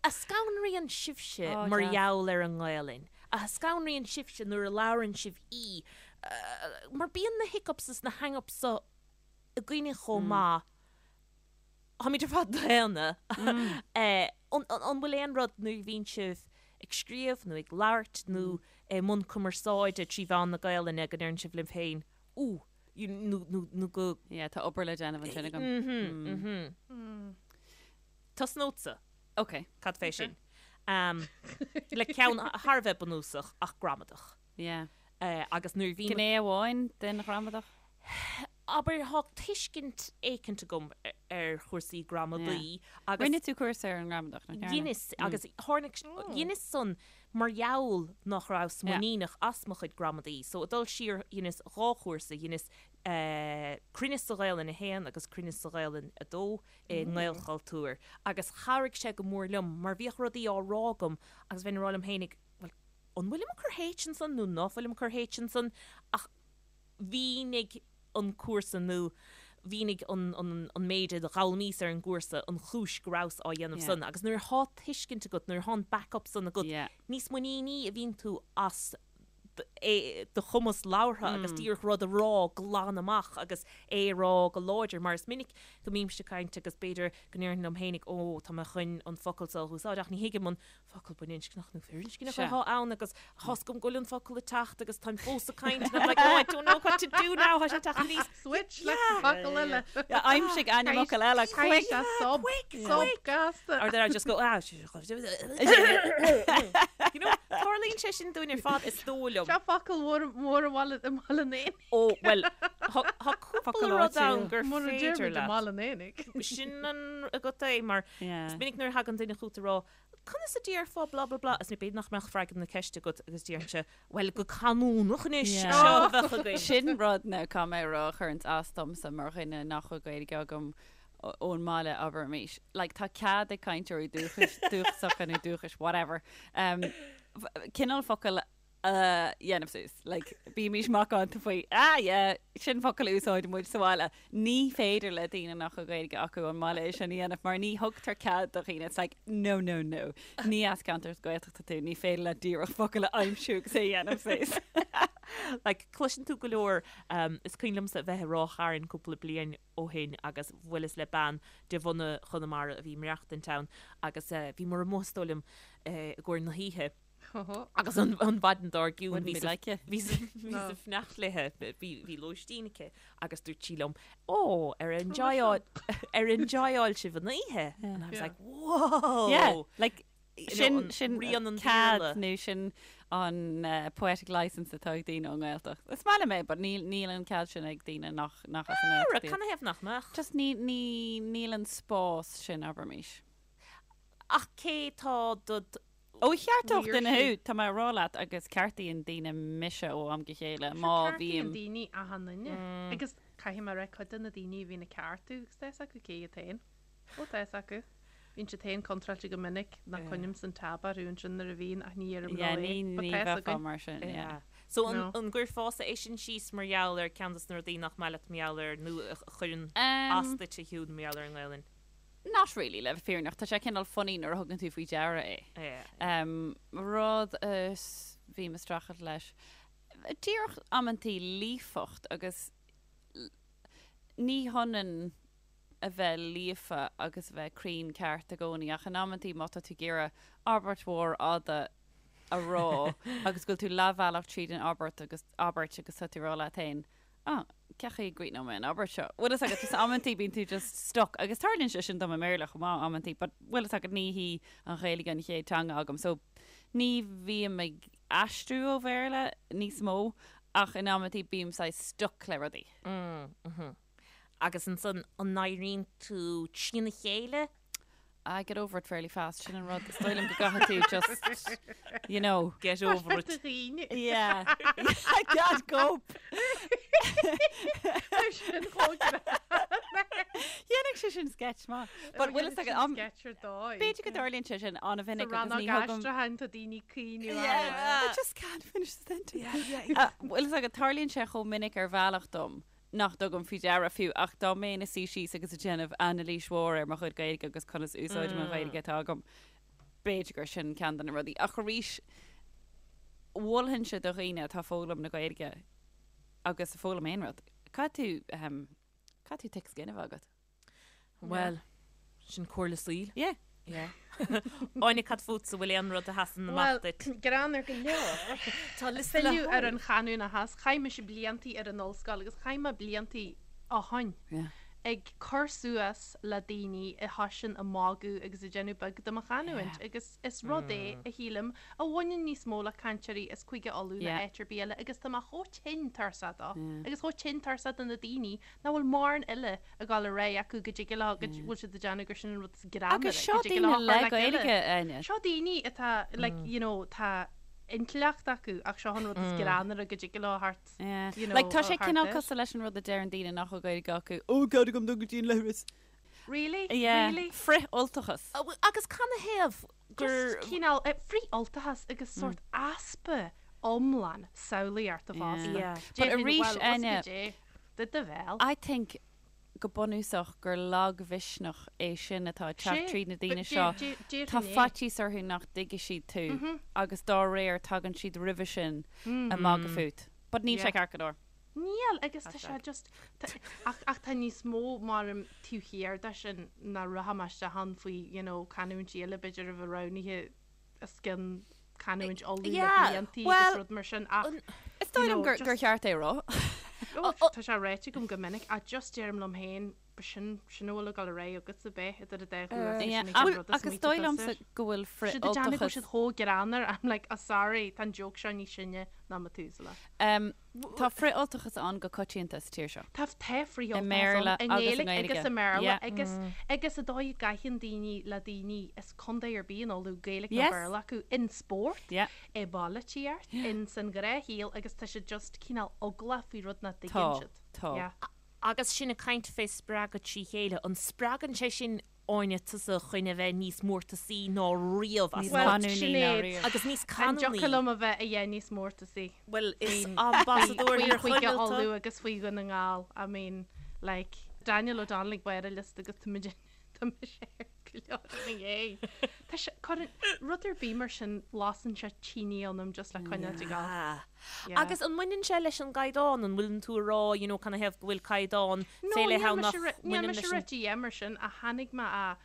a scanraíonn sibhse mar gheall ar an nGaelainn, a scanraíonn sibhse nuair a labhrann sibh í, mar bíonn na hiccups is na hang-ups so againne chomh maith. Táimid ar fad daonna. An bhfuil aon rud nuair a bhíonn sibh ag scríobh nó ag labhairt nó i mbun cumarsáide trí mheán na Gaelainne go ndeireann sibh libh féin, Ooh, nó go. Yeah, tá obair le déanamh ansin agam. Tosnódsa. Ok. Cad fé sin? Le ceann thar a bheith bunúsach ach gramadach. Yeah. Agus nuair a bhím. Gné amháin den ghramadach? Abair, thá tuiscint éicint agam ar chúrsaí gramadaí agus. Rinne tú cúrsa ar an ngramadach, nach ndearna? Dheineas, agus tháinig, dheineas san mar gheall nach rabhas muiníneach as mo chuid gramadaí. So, ag dul siar, dheineas dhá chúrsa, dheineas Cruinneas sa Ghaelainn 1 agus Cruinneas sa Ghaelainn 2 i nGaelchultúr agus chabhraigh sé go mór liom mar bhíodh rudaí á rá agam agus bheinn ag rá liom féinig, bhuel, an bhfuilim ag cur H ansan nó ná fuilim ag cur H ansan ach mhínigh an cúrsa nó mhínigh an an méid a d'fhoghlaimíos ar an gcúrsa an chúis go rabhas á dhéanamh san agus nuair athá tuiscint agat, nuair athá an back-up san agat, níos muiníní a bhíonn tú as do chumas labhartha agus díreach rud a rá glan amach agus é a rá go láidir mar is minic go mbímse ag caint agus b'fhéidir go ndéarfainn liom féinig ó tá mé chun an focal seo a úsáid ach ní thuigim an focal baininscneach nó firinscneach atá ann agus tá's agam go bhfuil an focal ag teacht agus táim fós ag caint and I'm like oh I don't know what to do now tá sé ag teacht aníos. Switch le focal eile. Aimsigh ainmfhocal eile quick. Sub sub gasta. Or then I just go ah you know tarlaíonn sé sin dúinn ar fad is dóigh liom. Seo focal mór mór i mBaile i mBaile an Éanaigh. Ó, bhuel, tá tá cúpla Focal rud ann áitiúil. gur Mura féidir deirimid i leat. mBaile an Éanaigh. Sin an agat é, mar Yeah. is minic nuair a thagann duine chugat ag rá, Conas a déarfá blah blah blah agus b'fhéidir nach mbeadh freagra na ceiste agat agus déarfainnse, bhuel, go canúnach anois, Yeah. seo a bheadh againn. Sin rud now caithfidh mé a rá a chuireanns as domsa mar dhuine nach bhfuil Gaeilge agam ón mbaile, abraimis. Like, tá cead ag cainteoirí dúchais, dúchasacha nó dúchais, whatever, um, cineál focal a dhéanamh suas. Like, bímís macánta faoi, ah yeah, sin focal a úsáideann muid sa bhaile. Ní féidir le daoine nach bhfuil Gaeilge acu ón mbaile é sin a dhéanamh mar ní thugtar cead do dhaoine. It's like, no, no, no. Ní as ceantar Gaeltachta tú, ní féidir leat díreach focal a aimsiú agus é a dhéanamh suas. Like, cloiseann tú go leor, um, is cuimhin liomsa a bheith i Ráth Chairn cúpla bliain ó shin agus bhuaileas le bean de bhunadh Chonamara a bhí ag maireachtaint ann agus eh, bhíomar amuigh is dóigh liom eh, i gcomhair na hoíche Agus an mhaidin dár gcionn bhí sa fanacht léi, bhí lóistín aici agus dúirt sí liom, Ó, ar enjoyáil ar enjoyáil sibh an oíche? And I was like, whoa! Yeah, like, sin sin rian an cead nó sin an poetic license atá ag daoine ón nGaeltacht. Is maith liom é, but níl níl an cead sin ag daoine nach nach as an nGaeltacht iad. Canathaobh nach mbeadh? Just ní ní níl an spás sin, abraimis. Ach cé tá do Ó cheartódh duine thú, tá mé a rá leat agus ceartaíonn daoine mise ó am go chéile má Ceartaíonn bhím. daoine achan duine agus caithfidh mé a rá cuid de na daoine a bhíonn ag ceartú agus tá fhios acu cé iad féin. Ó tá fhios acu. Bíonn siad féin contráilte go minic nach coinním an tab orthu ansin nuair a bhíonn ach ní deirim Yeah, leo é. ní But ní tá fhios bheifeá againn. mar sin, yeah. So an No. an gcuirfeása é sin síos mar gheall ar ceann dos na rudaí nach maith leat mar gheall ar nó a chuireann as duit a Shiún mar gheall ar an nGaelainn? Not really, le bheith fírinneach. Tá sé cineál funny nuair a thugann tú faoi deara é. Yeah. Rud a bhím ag streachailt leis, díreach amantaí líofacht agus ní hionann a bheith líofa agus a bheith cruinn ceart i gcónaí ach in amantaí má tá tú ag iarraidh abairt mhór fhada a rá agus go bhfuil tú leathbhealach tríd an abairt agus abairt agus tá tú ag rá leat féin Ah, cén chaoi a gcríochnóidh mé an abairt seo? Bhfuil fhios agat, just amantaí bíonn tú just stuck, agus tarlaíonn sé sin dom i mBéarla chomh maith amantaí, but bhfuil fhios agat ní hí an Ghaeilge an chéad teanga agam, so ní bhím ag aistriú ó Bhéarla níos mó, ach in amantaí bím saghas stuck le rudaí. Mm, mhm. Agus ansan, an n-éiríonn tú trína chéile? I get over it fairly fast, sin an rud, is dóigh liom go gcaithfidh tú just, you know. Get over it. Dhaoine. Yeah. I can't cope. Sin chomh Dhéanfadh sé sin sketch maith. But bhfuil fhios agat, am- sketch ar dóigh. b'fhéidir go dtarlaíonn sé sin an-mhinic Sa agus rannóg ní thugam. aistriúcháin tá daoine ag caoineadh Yeah, I just can't finish the sentence. Uh, Bhfuil fhios agat, tarlaíonn sé chomh minic ar bhealach dom nach dtugaim faoi deara fiú, ach dá mbeinn ina suí síos agus ag déanamh anailís mhór ar mo chuid Gaeilge agus conas úsáidim an Ghaeilge atá agam, b'fhéidir gur sin ceann de na rudaí. Ach arís, mholfainnse do dhaoine atá ag foghlaim na Gaeilge agus ag foghlaim aon rud, caithfidh tú, ehm, caithfidh tú thick skin a bheith agat. Bhuel, sin comhairle saoil. Yeah. Yeah. Áine, cad fútsa, bhfuil aon rud a sheasann amach Bhuel, duit? greann ar go leor. Tá liosta le Filleadh ar háireamh. an chanúnachas, chaith mise bliantaí ar an ollscoil agus chaith mé bliantaí ó shoin Yeah. ag cur suas le daoine a thoisigh ag magadh agus ag déanamh beag de mo chanúint agus is rud é, a shílim, a bhaineann níos mó le cainteoirí as Cúige Uladh ná Yeah. áit ar bith eile agus tá mé chomh tinn tuirseach dó Yeah. agus chomh tinn tuirseach de na daoine nach bhfuil mórán eile ag dul ar aghaidh acu go dtig leo, go bhfuil siad ag déanamh gur sin an rud is greannmhaire, Agus seo go dtig daoine leo le cur le chéile. Gaeilge, Áine. Seo daoine atá, like, you know, tá intleacht acu ach seo an rud is greannmhaire go dtig leo thart, Yeah. you know, Like, tá sé thart cineál air. cosúil leis an rud a deireann daoine nach bhfuil Gaeilge acu, Ó, cead agam dul go dtí an leithreas. Really? Yeah. Really? Frith-Ultachas. Agus canathaobh gur. Just cineál frith-Ultachas agus sórt easpa iomlán samhlaíochta fosta. Yeah. But Déarfainn, arís, well, what's Áine, go dé? Do do bhéal. I think go bunúsach gur lagmhisneach é sin atá ag teacht Sé, tríd na daoine but seo. déarfainn Tá é. faitíos orthu nach dtuigfidh siad tú agus dá réir tagann siad roimhe sin ag magadh fút. But níl sé Yeah. ceart go leor. Níl, agus tá sé just, ach, ach tá níos mó mar taobh thiar de sin ná rachaidh mé isteach ann faoi, you know, canúintí eile b'fhéidir a bheith roghnaithe os cionn canúint Uladh le Yeah, bliantaí well, agus rud mar sin ach, Is dóigh you liom know, gur, gur just, cheart é a rá. oh, tá sé ráite agam go minic ach just deirim liom féin. Sin sin a bhfuil ag dul ar aghaidh agatsa bheith idir an dá ghuth Yeah, sin an ach rud is agus smaointe dóigh liomsa tusa. go bhfuil Siad ag déanamh go bhfuil frith-Ultachas. siad chomh greannmhar, I'm like, oh sorry, tá an joke seo níos sine ná Methuselah. Um, tá frith-Ultachas ann go coitianta sa tír seo. Tá tá I frith-Ultachas mBéarla ann i agus i nGaeilge nGaeilge. agus i mBéarla Yeah. agus agus an dóigh a gcaitheann daoine le daoine as contae ar bith in Uladh, Gaeilge nó Yes. Béarla acu, in spórt, Yeah. i bpolaitíocht, in san ghnáthshaol agus tá siad just cineál eaglach faoi rud nach Tá, dtuigeann siad. tá. Yeah. Agus sinn ag caint fé spreagadh trí chéile, an spreagann sé sin Áine tusa chun a bheith níos mórtasaí ná riamh as Níos Bhuel, canúnaí ná Sinéad, riamh. Agus níos an canúnaí. dtiocfadh liom a bheith a dheith níos mórtasaí Bhuel, is faoin ambasadóir faoi thír Chúige Chonaill tú. Uladh agus faoi Dhún na nGall. I mean, like, Daniel O'Donnell ag barr a liosta agus tá muid Tá mise ar go leor ina dhiaidh. Tá sé, cuireann, rud ar bith mar sin, lasann sé tine ionam just le coinneáil ag gabháil. Ah. Yeah. Agus an mbaineann sé leis an gcaighdeán? An bhfuileann tú ag rá, you know, canathaobh go bhfuil caighdeán No, fé leith níl ann mise nach ri- níl mbaineann mise leis an. rite dhéanamh mar sin ach tháinig mé a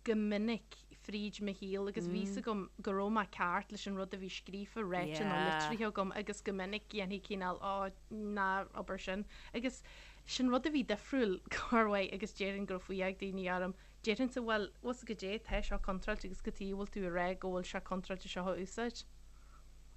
go minic fríd mo shaol agus bhí fhios agam go raibh mé ceart leis an rud a bhí scríofa, ráite nó Yeah. litrithe agam agus go minic dhéanfaí cineál, oh, ná abair sin. Agus Sin rud a bhí difriúil, corruair, agus déarfainn go raibh fuath ag daoine orm. Déarfainnse, bhuel, bhfuil 's agat goidé, tá seo contráilte agus cad chuige a bhfuil tú ag rá go bhfuil sé contráilte seo a úsáid?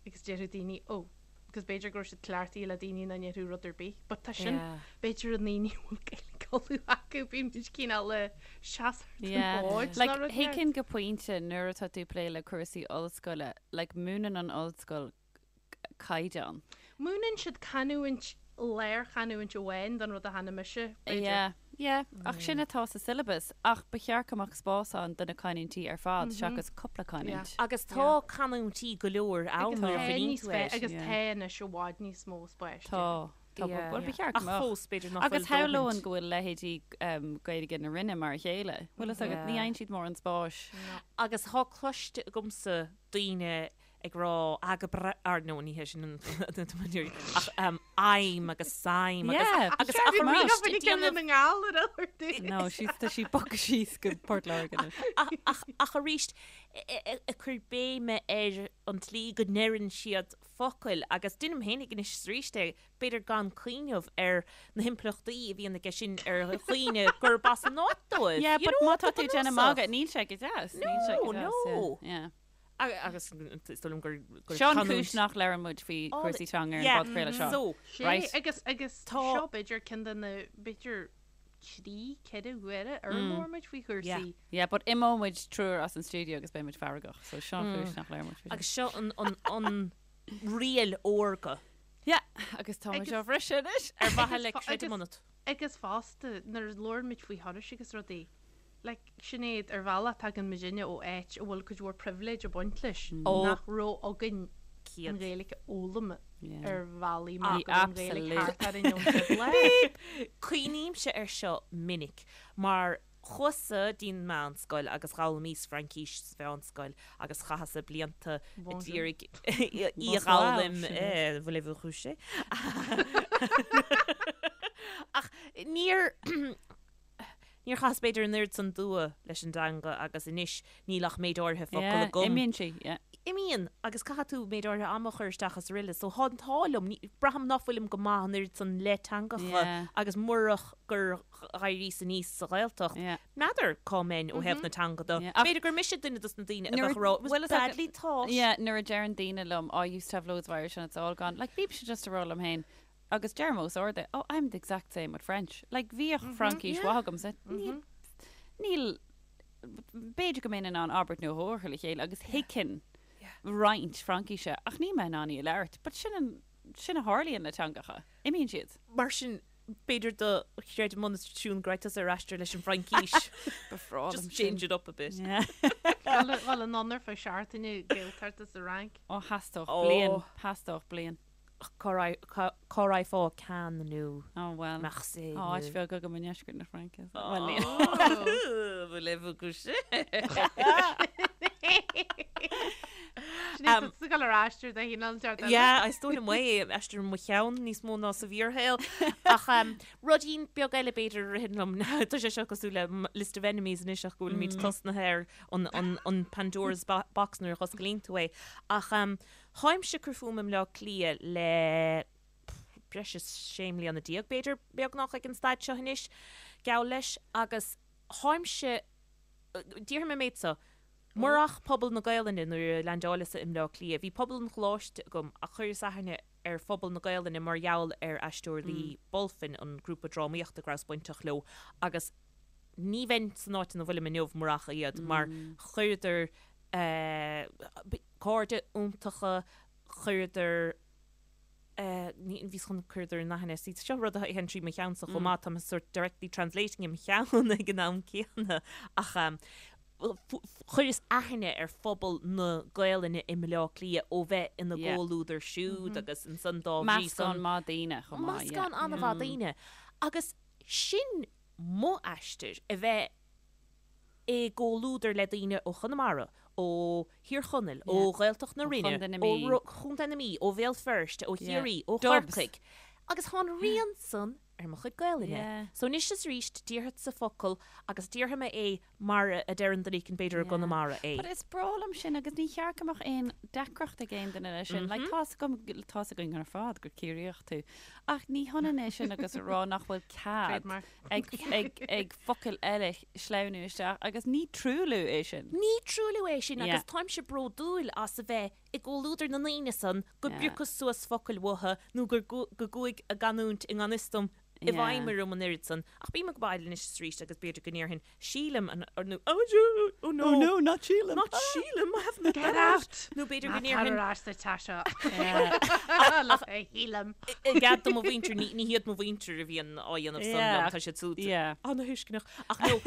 Agus déarfadh daoine, oh, agus b'fhéidir go raibh siad cleachtaithe le daoine nach ndéarfadh rud ar bith. But tá sin, b'fhéidir na daoine a bhfuil Gaeilge Uladh acu, bíonn muid cineál ag seasamh ar an bhfód Like, nó rud éigin. thuigfinn go pointe nuair atá tú ag plé le cúrsaí ollscoile, like, múineann an ollscoil caighdeán. Múineann siad canúint, lárchanúint amháin don rud a chana mise, b'fhéidir. Yeah, yeah, ach sin atá sa syllabus, ach ba cheart go mbeadh spás ann do na canúintí ar fad seachas cúpla canúint. Agus tá canúintí go leor ann Agus nuair a tá chuimhníonn níos tú air. agus Yeah. tá anois i bhfad níos mó spáis. Tá, tá, Yeah. bhuel ba cheart go Ach mbeadh. fós, b'fhéidir nach Agus bhfuil dóthaint. shamhlóinn go bhfuil leithéidí Gaeilge na Rinne mar a chéile. Bhfuil fhios agat, ní Yeah. fhaigheann siad mórán spáis. Agus tá cloiste agamsa daoine ag rá ah go breá, or no ní hé sin an ach I'm agus I'm agus Yeah, agus ba ach cheart arís go ag déanamh na nGall ar orthu. No, she's tá sí bogtha síos go Port Láirge anois. ach ach ach arís ag cur béime ar an tslí go ndeireann siad focail agus deinim féinig anois is arís é b'fhéidir gan cuimhneamh ar na himpleachtaí a bhíonn aige sin ar dhaoine gurb as an áit dóibh. Yeah, You but know, má tá go tú ag déanamh bunúsach. magadh, níl sé go deas. Níl sé go No, deas, yeah, no. yeah. Agus is dóigh liom gur Seo an canúint. chúis nach labhrann muid faoi chúrsaí teanga ar an bpodchraoladh seo. So, Sé, Right. agus agus Tá- seo b'fhéidir ceann de na b'fhéidir 3, 4 huaire ar labhair muid faoi chúrsaí. Yeah, but imeoidh muid triúr as an stiúideo agus beidh muid feargach, so seo an chúis nach labhrann muid faoi. Agus seo an an an riail órga. Yeah, agus tá muid Agus- á bhriseadh anois. Ar mhaithe le Agus- creidim agus- ionat. Agus fosta, nuair a labhrann muid faoi thurais agus rudaí, Like, Sinéad, ar bhealach tagann muidinne ó áit a bhfuil cuid mhór pribhléid ag baint leis, nach raibh againn an Ghaeilge a fhoghlaim ar bhealaí mar go raibh an Ghaeilge thart orainn ón gcéad lá. Cuimhnímse air seo minic, mar chuas-sa dtí'n meánscoil agus dh'fhoghlaimíos Fraincís sa mheánscoil agus chaitheas-sa blianta a d'iarraidh í a dh'fhoghlaim, voulez-vous coucher? Ach níor. Níor chaitheas b'fhéidir an oiread san dua leis an dteanga agus anois níl ach méid áirithe focal Yeah, agam. imíonn sí, yeah. Imíonn, agus caithfidh tú méid áirithe ama a chur isteach is araile so tá an t-ádh liom, ní, braithim ná fuilim go maith an oiread san le teangacha Yeah. agus murach gur dh'éiríos aníos sa Ghaeltacht, Yeah. n'fheadar cá mbeinn ó thaobh na teanga de. Yeah, ach- B'fhéidir gur mise duine dos na daoine a Nuair a- bheadh ag rá, it was bhfuil fhios agat- badly taught. Yeah, nuair a deireann daoine liom, oh, I used to have loads of Irish and it's all gone. Like, bímse just ag rá liom féin, Agus deirim os ard é, oh, I'm the exact same with French. Like, bhíodh Fraincis mhaith agamsa. Níl, níl, b'fhéidir go mbeinn in ann abairt nó dhó a chur le chéile agus thuigfinn roinnt Fraincise, ach níl mé in ann í a labhairt. But sin an, sin a tharlaíonn le teangacha. Imíonn siad. Mar sin, b'fhéidir do chreidim ionat Siún go raibh tusa ar aistear leis an bhFraincis. Ba bhreá liom Just sin. change it up a bit. Yeah. Dul anonn ar feadh seachtaine Gaeltacht is sa Fhrainc. Ó, theastódh Ó. bliain, theastódh bliain. Cá raghfá Cannes nó Oh well. Marseille Tá áit nó. bheag agam i ndeisceart na Fraince. so- Well, níl. Voulez-vous coucher? Sinéad, tá tú ag dul ar aistear de chineál inteacht eile. Yeah, is dóigh liom é, aistear i mo cheann níos mó ná sa bhfíorshaol. Ach ruidín beag eile b'fhéidir a ritheann liom, tá sé seo cosúil le list of enemies anois ach go bhfuilimid tosnaithe ar an Pandora's box nuair a dh'osclaíonn tú é. Ach Tháimse ag cur fúm i mBleá Cliath le breis is 16 mbliana, b'fhéidir, beagnach ag an staid seo anois. Geall leis agus tháimse, déarfaidh mé an méid seo, murach pobal na Gaelainne nuair a leaindeáileas-sa i mBleá Cliath, bhí pobal an choláiste agam ach chuireas aithne ar phobal na Gaelainne mar gheall ar Aisteoirí Bulfin, an grúpa drámaíochta go rabhas bainteach leo agus ní bheinn san áit ina bhfuilim inniu murach iad mar chuireadar cairde iontacha, chuireadar ní bhíos chun cuireadar in aithne, see seo rud a théann trí mo cheannsa chomh maith, tá mé sort directly translating i mo cheann ag an am céanna ach chuireas aithne ar phobal na Gaelainne i mBleá Cliath ó bheith ina gcomhluadar siúd agus ansan dá bhrí san. Meascán maith daoine chomh maith, yeah. Meascán an-mhaith daoine. Agus sin mo aistear, a bheith i gcomhluadar le daoine ó Chonamara, ó Thír Chonaill, ó Ghaeltacht na Rinne, ó Chontae na Mí, ó Bhéal Feirste, ó Chiarraí, ó Chorcaigh. Agus tá an rian san ar mo chuid Gaelainne. So anois is arís déarfadsa focal agus déarfaidh mé é mar a deireann duine éicint b'fhéidir i gConamara é. But is breá liom sin agus ní cheart go mbeadh aon deacracht ag aon duine leis sin. Like tá's agam, tá's againn ar fad gur Ciarraíoch tú. Ach ní hionann é sin agus a rá nach bhfuil cead ag, ag, ag focail eile sleamhnú isteach agus ní truailliú é sin. Ní truailliú é sin agus táimse bródúil as a bheith i gcomhluadar na ndaoine san go bpiocas suas focail uathu nó gur go gcuaigh a gcanúint i ngan fhios dom i bhfeidhm orm an oiread san. Ach bím ag baile anois is arís agus b'fhéidir go ndéarfainn sílim an nó oh oh no Oh no, not sílim! Not sílim, I haven't Get out! Nó b'fhéidir go ndéarfainn Tar ar ais sa teach seo. Shílim. I gcead do mo mhuintir, ní hiad mo mhuintir a bhíonn á dhéanamh san liom, tá siad súd ana-thuisceanach. Ach no,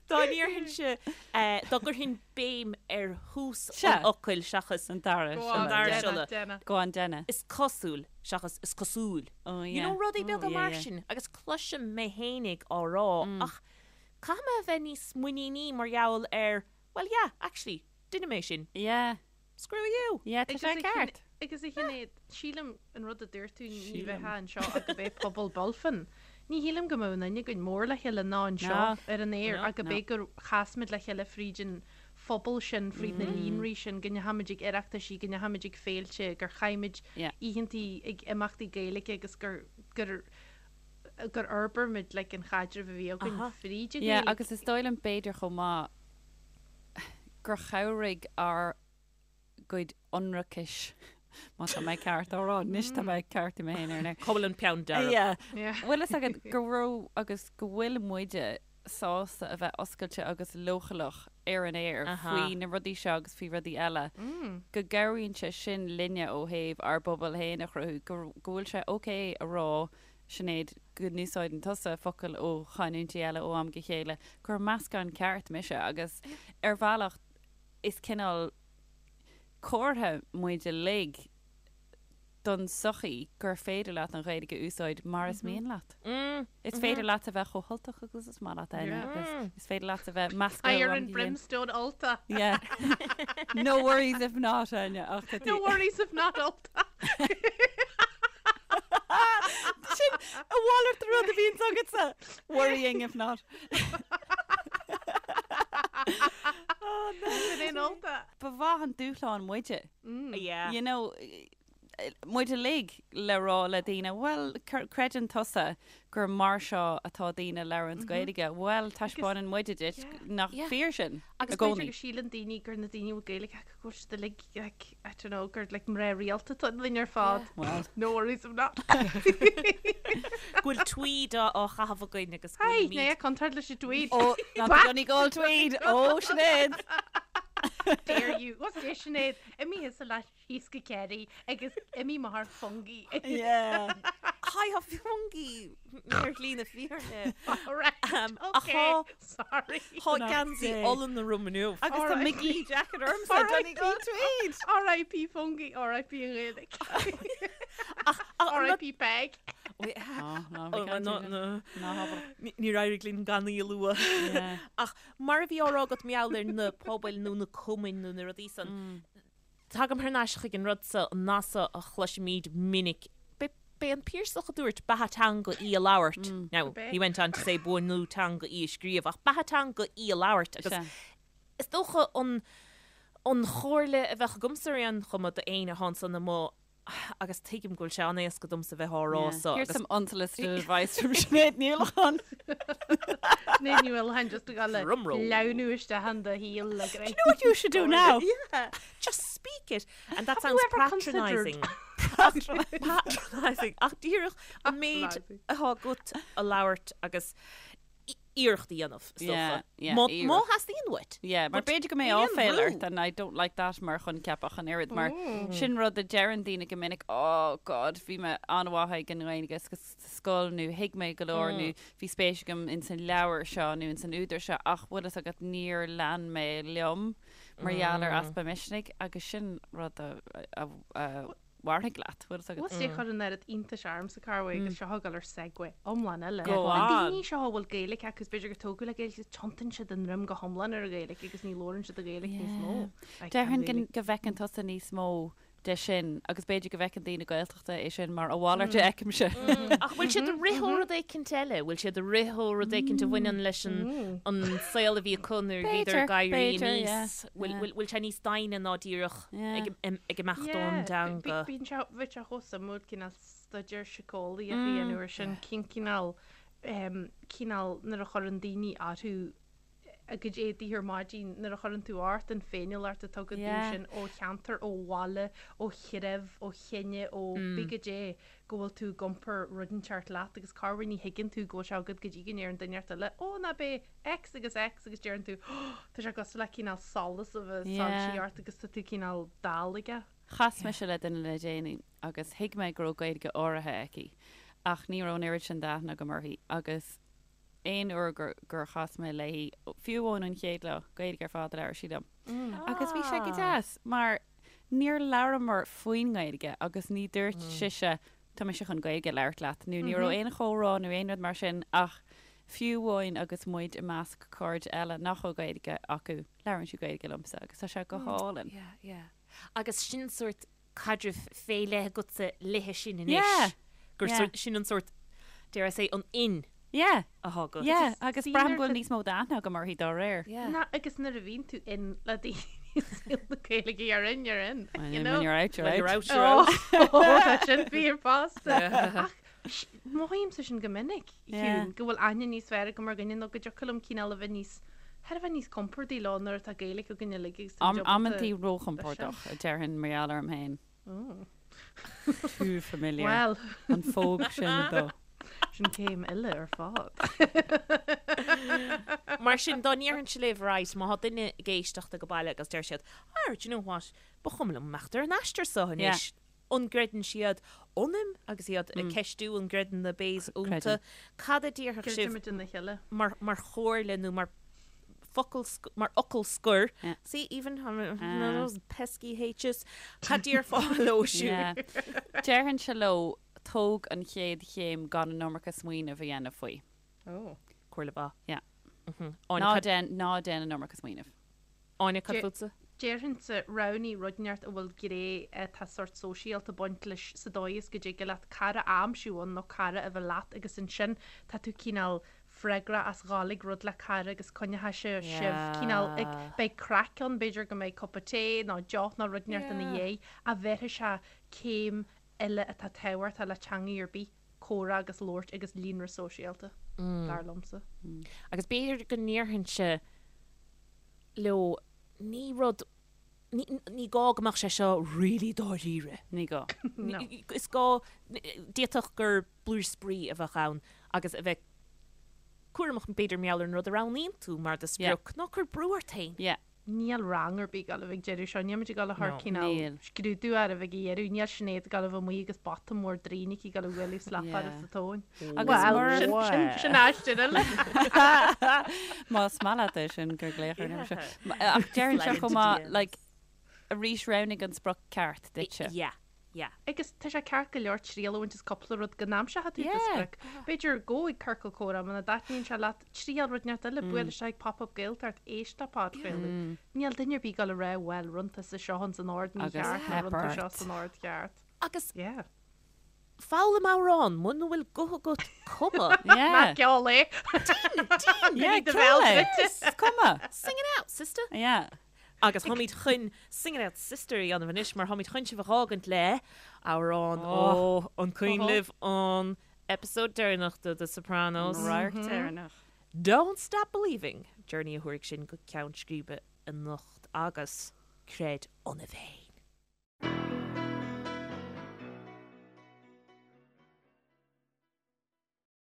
dá ndéarfainnse, dá gcuirfinn béim ar thús an fhocail seachas an dara siolla. Go on, déan é. Is cosúil seachas is cosúil. You know, rudaí beaga mar sin agus cloisim mé fhéinig á rá ach caithfidh mé a bheith níos muiníní mar gheall ar, well yeah, actually, duine mé sin. Yeah. Screw you! Yeah, tá sé ceart. Agus a Shinéad, sílim an rud a dúirt tú ní bheifeá anseo ach gurb é pobal Bulfin. Ní shílim go mbeadh aon duine againn mór le chéile ná anseo ar an aer ach gurb é gur chas muid le chéile fríd an phobal sin, fríd na líonraí sin, go ndeachaigh muid ag oireachtaisí, go ndeachaigh muid ag féilte, gur chaith muid oícheantaí ag imeachtaí Gaeilge agus gur gur gur fhorbair muid like an chaidreamh a bhí againn fríd an Yeah, agus is dóigh liom b'fhéidir chomh maith gur chabhraigh ár gcuid ionracais, má tá mé ceart á rá, anois tá mé ag ceartú mé féin ar an aer. Cá bhfuil an peann dearg? Yeah. Bhfuil fhios agat go raibh agus go bhfuil muide sásta a bheith oscailte agus leochaileach ar an aer faoi na rudaí seo agus faoi rudaí eile, go gcabhraíonn sé sin linne ó thaobh ár bpobal féin a chruthú, go bhfuil sé ok a rá, Sinéad, go n-úsáideann tusa focail ó chanúintí eile ó am go chéile, gur meascán ceart mise agus ar bhealach is cineál comhartha muid uilig don tsochaí gur féidir leat an Ghaeilge a úsáid mar is mian leat. Is féidir leat a bheith chomh hUltach agus is maith leat, Áine, agus is féidir leat a bheith measctha ó am go chéile. Fire and brimstone Ultach. Yeah. No worries if not, Áine, ach tá tú. No worries if not Ultach. Sin a mhalairt de rud a bhíonns agatsa. Worrying if not. Sin é an Ultach. Ba mhaith an dúshlán muide. Yeah. You know, muid uilig le rá le daoine, bhuel, creideann tusa gur mar seo atá daoine ag labhairt Gaeilge, bhuel, taispeánann muide duit nach fíor sin i gcónaí. Agus b'fhéidir go síleann daoine gur na daoine a bhfuil Gaeilge acu go bhfuil siad uilig, like, I don't know, gur like mná rialta atá ionainn ar fad. Well. No worries if not. Go bhfuil tweed á chaitheamh againn agus go Hey, bhfuilimid. ná contúirt leis an tweed. Oh, not the Donegal tweed! Oh, Sinéad! Dare you. What's this, Sinéad? Imigh thusa leat síos go Kerry agus imigh mo thar fungi. Yeah. Hi, tá fungi ar shlí na fírinne. Alright, Um, ach okay, tá- sorry. Tá geansaí olann orm inniu. Agus tá McGee jacket ormsa, Donegal tweed! R.I.P. fungi, R.I.P. an Ghaeilge. R.I.P. Peig. Oh, ná, Oh, bhí caint no, aige. no. Ná habair. Níor éirigh linn gan í a lua. Yeah. Ach mar a bhí á rá agat mar gheall ar na pobail nó na cumainn nó na rudaí san, Tagaim thar n-ais chuig an rud so, an nath so a chloisimid minic, b'é an Piarsach a dúirt beatha teanga í a labhairt. Now, he went on to say buanú teanga í a scríobh, ach beatha teanga í a labhairt agus is dócha an an chomhairle a bheadh agamsa ar aon chuma do éinne atá ansan amuigh. Agus tuigim go bhfuil sé an-éasca domsa bheith á rá so. Here's some unsolicited advice from Sinéad Ní Uallacháin. Sinéad Ní Uallacháin just ag dul le Drumroll. leamhnú isteach in do shaol le Do you know what you should do now? Yeah, just speak it. And that Have you sounds ever considered- patronising. Patronising. Ach díreach an méid Patronising. atá agat a labhairt agus iarracht a dhéanamh, is Yeah, dócha. yeah, Má iarracht. má theastaíonn uait. Yeah, mar But b'fhéidir go mbeidh níl aon áiféil bhrú. ort and I don't like that mar choincheap ach an oiread mar sin rud a deireann daoine go minic, oh God, bhí mé an-mhaith ag an nGaeilge sa scoil nó thuig mé go leor nó bhí spéis agam ins an leabhar seo nó ins an údar seo ach bhfuil fhios agat níor lean mé liom mar gheall ar easpa misnigh agus sin rud a, a, a, mhairfidh leat, bhfuil fhios agat. Bhfuil sé chur an oiread iontais ormsa corruair agus seo ag dul ar segue iomlán eile. Go Na on. daoine seo a bhfuil Gaeilge acu is b'fhéidir gur tógadh le Gaeilge iad, tiontaíonn siad a ndroim go hiomlán ar an Ghaeilge agus ní labhrann siad an Ghaeilge níos mó. I can't Déarfainn really. go bhfeiceann tusa níos mó de sin agus b'fhéidir go bhfeiceann daoine Gaeltachta é sin mar a mhalairt a fheicimse. Ach bhfuil siad ag rith ó rud éicint eile? Bhfuil siad ag rith ó rud éicint a bhaineann leis an an saol a bhí acu nuair a bhíodar ag éirí B'fhéidir, aníos? yeah, Bhfuil yeah. bhfuil bhfuil sé níos doimhne ná díreach Yeah. ag ag imeacht ón dteanga? Bíonn sé bheadh sé chomh suimiúil cineál staidéar síceolaíoch a dhéanamh ar sin, cén cineál cineál nuair a chuireann daoine orthu a gcuid éadaí ar maidin, nuair a chuireann tú ort an féiniúlacht atá agat Yeah. sin ó cheantar, ó bhaile, ó threibh, ó chine, ó pé goidé go bhfuil tú ag iompar rud inteacht leat agus corruair ní thuigeann tú go bhfuil sé agat go dtí go ndeireann duine inteacht eile, ó ná b'é X agus X agus deireann tú oh tá sé cosúil le cineál solas a bheith Yeah. soilsithe ort agus tá tú cineál dall aige. Chas mise le duine le déanaí agus thuig mé go raibh Gaeilge áirithe aici ach ní raibh an oiread sin d'aithne agam uirthi agus aon uair gur, gur chas mé léi, fiú amháin an chéad lá, Gaeilge ar fad a labhair sí liom. Agus bhí sé go deas mar níor labhramar faoin nGaeilge agus ní dúirt sise tá mise chun Gaeilge a labhairt leat nó ní raibh aon chomhrá nó aon rud mar sin ach fiú amháin agus muid i measc cairde eile nach bhfuil Gaeilge acu, labhrann sí Gaeilge liomsa agus tá sé go hálainn. Yeah, yeah. Agus sin sórt caidreamh fé leith agatsa léithe sin anois. Yeah, Gur yeah. sórt, sin an sórt, dare I say, an in Yeah, atá agat. yeah, agus daoine braithim go ar bhfuil níos mó d'aithne agam uirthi dá réir. Yeah. Ná agus nuair a bhíonn tú in le daoine i saol na Gaeilge you're in, you're in, When you know? you're out, you're When out. you're out, you're out. Oh, tá sin fíor fosta. Ach mothaímse sin go minic, Yeah. Shiún, go bhfuil aithne níos fearr agam ar dhuine nó go dtiocfadh liom cineál a bheith níos, thar a bheith níos compordaí leo nuair atá Gaeilge againn uilig agus táimid Am, ábalta amantaí róchompordach, a déarfainn mar gheall orm féin. Oh. Too familiar. Well, An phóg sin dó. sin céim eile ar fad. Mar sin, dá ndéarfainnse libh, right, má tá duine ag éisteacht ag baile agus deir siad, ah, do you know what, ba chuma liom imeacht ar an aistear seo anois. An gcreideann siad ionaim agus iad ag ceistiú an gcreideann na Bays iontu? Creideann. Cad a déarfadh sibh Creidimid ina chéile. mar, mar chomhairle nó mar focal, mar fhocal scoir? Yeah. See, even those pesky H's. Cad déarfá leo siúd? Yeah. Déarfainnse leo tóg an chéad chéim gan an iomarca smaoineamh a dhéanamh faoi. Oh. Comhairle mhaith. Yeah. Áine, Ná cad, déan, ná déan an iomarca smaoineamh. Áine, cad Dé- fútsa? Déarfainnse roghnaigh rud inteacht a bhfuil gné atá sórt sóisialta ag baint leis sa dóigh is go dtig leat cara a aimsiú ann nó cara a bheith leat agus ansin tá tú cineál freagrach as dhul ag rud le cara agus coinneoidh sé sibh cineál ag beidh craic ann b'fhéidir go mbeidh cupa tae nó deoch nó rud inteacht ina dhiaidh a bhéarfaidh sé céim eile atá tábhachtach le teangaidh ar bith, comhrá agus labhairt agus líonra sóisialta, dar liomsa. Agus b'fhéidir go ndéarfainnse leo ní rud, ní, ní gá go mbeadh sé seo really dáiríre. Ní gá. No. Is gá, d'fhéadfadh gur blúire spraoi a bheadh ann agus a bheith cúramach b'fhéidir mar gheall ar an rud a roghnaíonn tú mar do sprioc, ná cuir brú ort féin. Yeah. Níl rang ar bith ag dul a bheith ag deireadh seo, níl muid ag dul a chur No. cineál Níl. scrúdú air a bheith ag iarraidh, níl Sinéad ag dul a bheith amuigh agus bata mór draoin aici ag dul a bhualadh slap Yeah. air sa tóin. Agus Well, mura- sin, sin, sin aistear eile. Más maith leat é sin gur glaoch ar an uimhir seo. Ach deireann sé chomh maith, like, arís roghnaigh an sprioc ceart duitse. Yeah, yeah. Agus tá sé ceart go leor triail a bhaint as cúpla rud go n-aimseoidh tú do Yeah. sprioc. B'fhéidir gabh ag ciorcal comhrá muna dtaitníonn sé leat, triail rud inteacht eile, buail isteach ag Pop Up Gaeltacht, éist le podchraoladh. Níl duine ar bith ag dul a rá bhuel, rinne tusa seo ins an ord Agus mícheart nó theip rinne tú seo ort. san ord ceart. Agus Yeah. foghlaim amhrán, muna bhfuil guth agat cuma. Yeah. Ná ceol é. Yeah, do ceol bhéal é. druidte. Is cuma. Sing it out, sister. Yeah. Agus táimid chun Sing It Out Sister a dhéanamh anois mar táimid chun sibh a dh'fhágaint le amhrán ó an cuimhin libh an episode deireanach de The Sopranos. An radharc deireanach. Don't Stop Believing! Journey a thabharfaidh sinn go ceann scríbe anocht agus creid ionaibh féin.